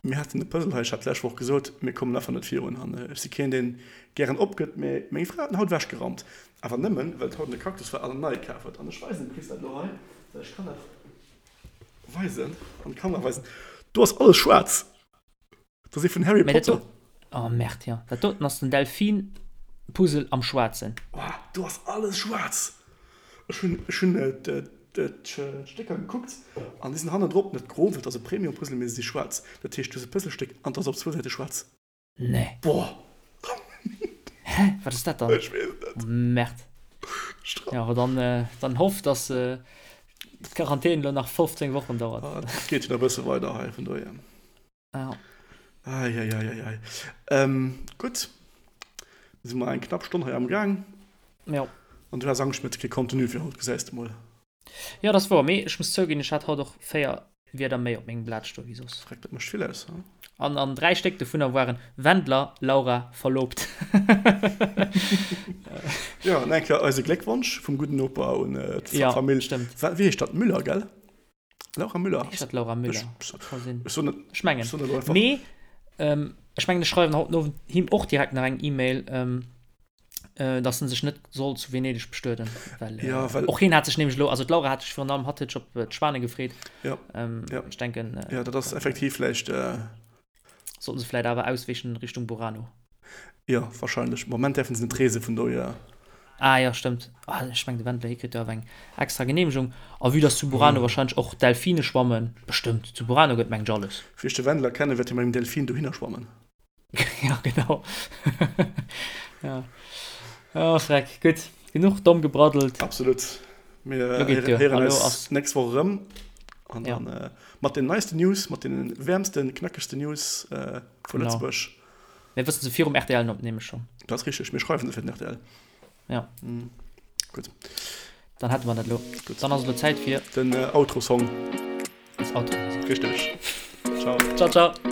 Mir haten e Puzzle hei, ech hat d'lescht Woch gesot, mir kommen einfach net virun an ech si keen, deen gären opgëtt, mee meng Fra huet en haut ewechgeraumt, awer nëmmen, well et haut an de Cactus war an en neie kaf huet. An ech weisen dem Chris dat elo hei, well ech kann dat weisen, an d'Kamera weisen, do ass alles schwaarz. Dat ass ee vun Harry Mä dat Potter. do, oh Merde, jo. Dat doten ass den Delfin-Puzzle am Schwaarzen. Oh, do ass alles schwaarz. Ech hunn, ech hunn d'Stécker gekuckt an déi sinn hannendrop net gro, well et ass e Premium-Puzzle, mee se si schwaarz. Dat heescht, du hues e Puzzlestéck an et ass op zwou Säite schwaarz. Nee. Boah. Hä? Wat ass dat dann? Ech weess et net. Merde. Stra. Jo, awer dann, dann hoff, dass d'Quarantän elo nach 15 Wochen dauert. Ah, et geet jo nach e bësse weider hei, vun dohier. Ja. Eieieiei. Ähm, gutt. Da si mer eng knapp Stonn hei am Gaang. Ja. An du has Angscht, mir hätte kee Contenu fir haut, gesäis de mol. Ja, dat ass wouer. Mee ech muss zouginn, ech hat haut och 4 Wierder méi op mengem Blat stoe wéi soss. Freck, dat mécht vill aus, he? An, an 3 Stéck dovunner waren Wendler, Laura, verlobt. Jo, an eng Kéier eise Gléckwonsch vum gudden Noper un d'Famill. Ja, stëmmt. Wéi heescht dat? Müller, gell? Laura Müller. Heescht dat Laura Müller? Ech, Ka sinn. ech soen net, Ech mengen. ech soen elo einfach. Mee ähm, ech mengen, ech schreiwen haut den Owend him och direkt nach eng E-Mail, ähm, äh, dass en sech net soll zu Venedeg bestueden. Well, äh, Ja, well- och hien hat sech nämlech elo, also d'Laura hat sech virun allem, hatt huet sech op äh, d'Schwane gefreet. Ja, Ähm, Ja. Ech denken, äh, ja, dat ass effektiv vläicht, äh, sollten se vläit awer ausweechen Richtung Burano. Jo, wahrscheinlech. Moment däerfen se net reesen, vun dohier. Ah jo, stëmmt. Ah, ech meng de Wendler, hie kritt jo awer eng extra Geneemegung. A vue dass zu Burano wahrscheinlech och Delfine schwammen, bestëmmt, zu Burano gëtt mengt ech alles. Wéi ech de Wendler kennen, wäert hie mat engem Delfin dohinner schwammen. Ja, genau. Ja. Oh, Freck. Gutt, genuch domm gebraddelt. Absolut. Mir Lo geet duer. héieren Elo eis ass. d'nächst Woch erëm. An Ja. dann äh, mat den neisten News, mat den wäermsten, knackegsten News äh, vu Genau. Lëtzebuerg. Mir wëssen se virum RTL opnehme schonn. Dat ass richteg. Mir schreiwen se fir den RTL. Ja. Mm. Gutt. Dann hätte mer dat elo. Gutt. Dann ass elo Zäit fir. Den äh, Outro-Song. Das Outro. Richteg. Ciao. Ciao, ciao.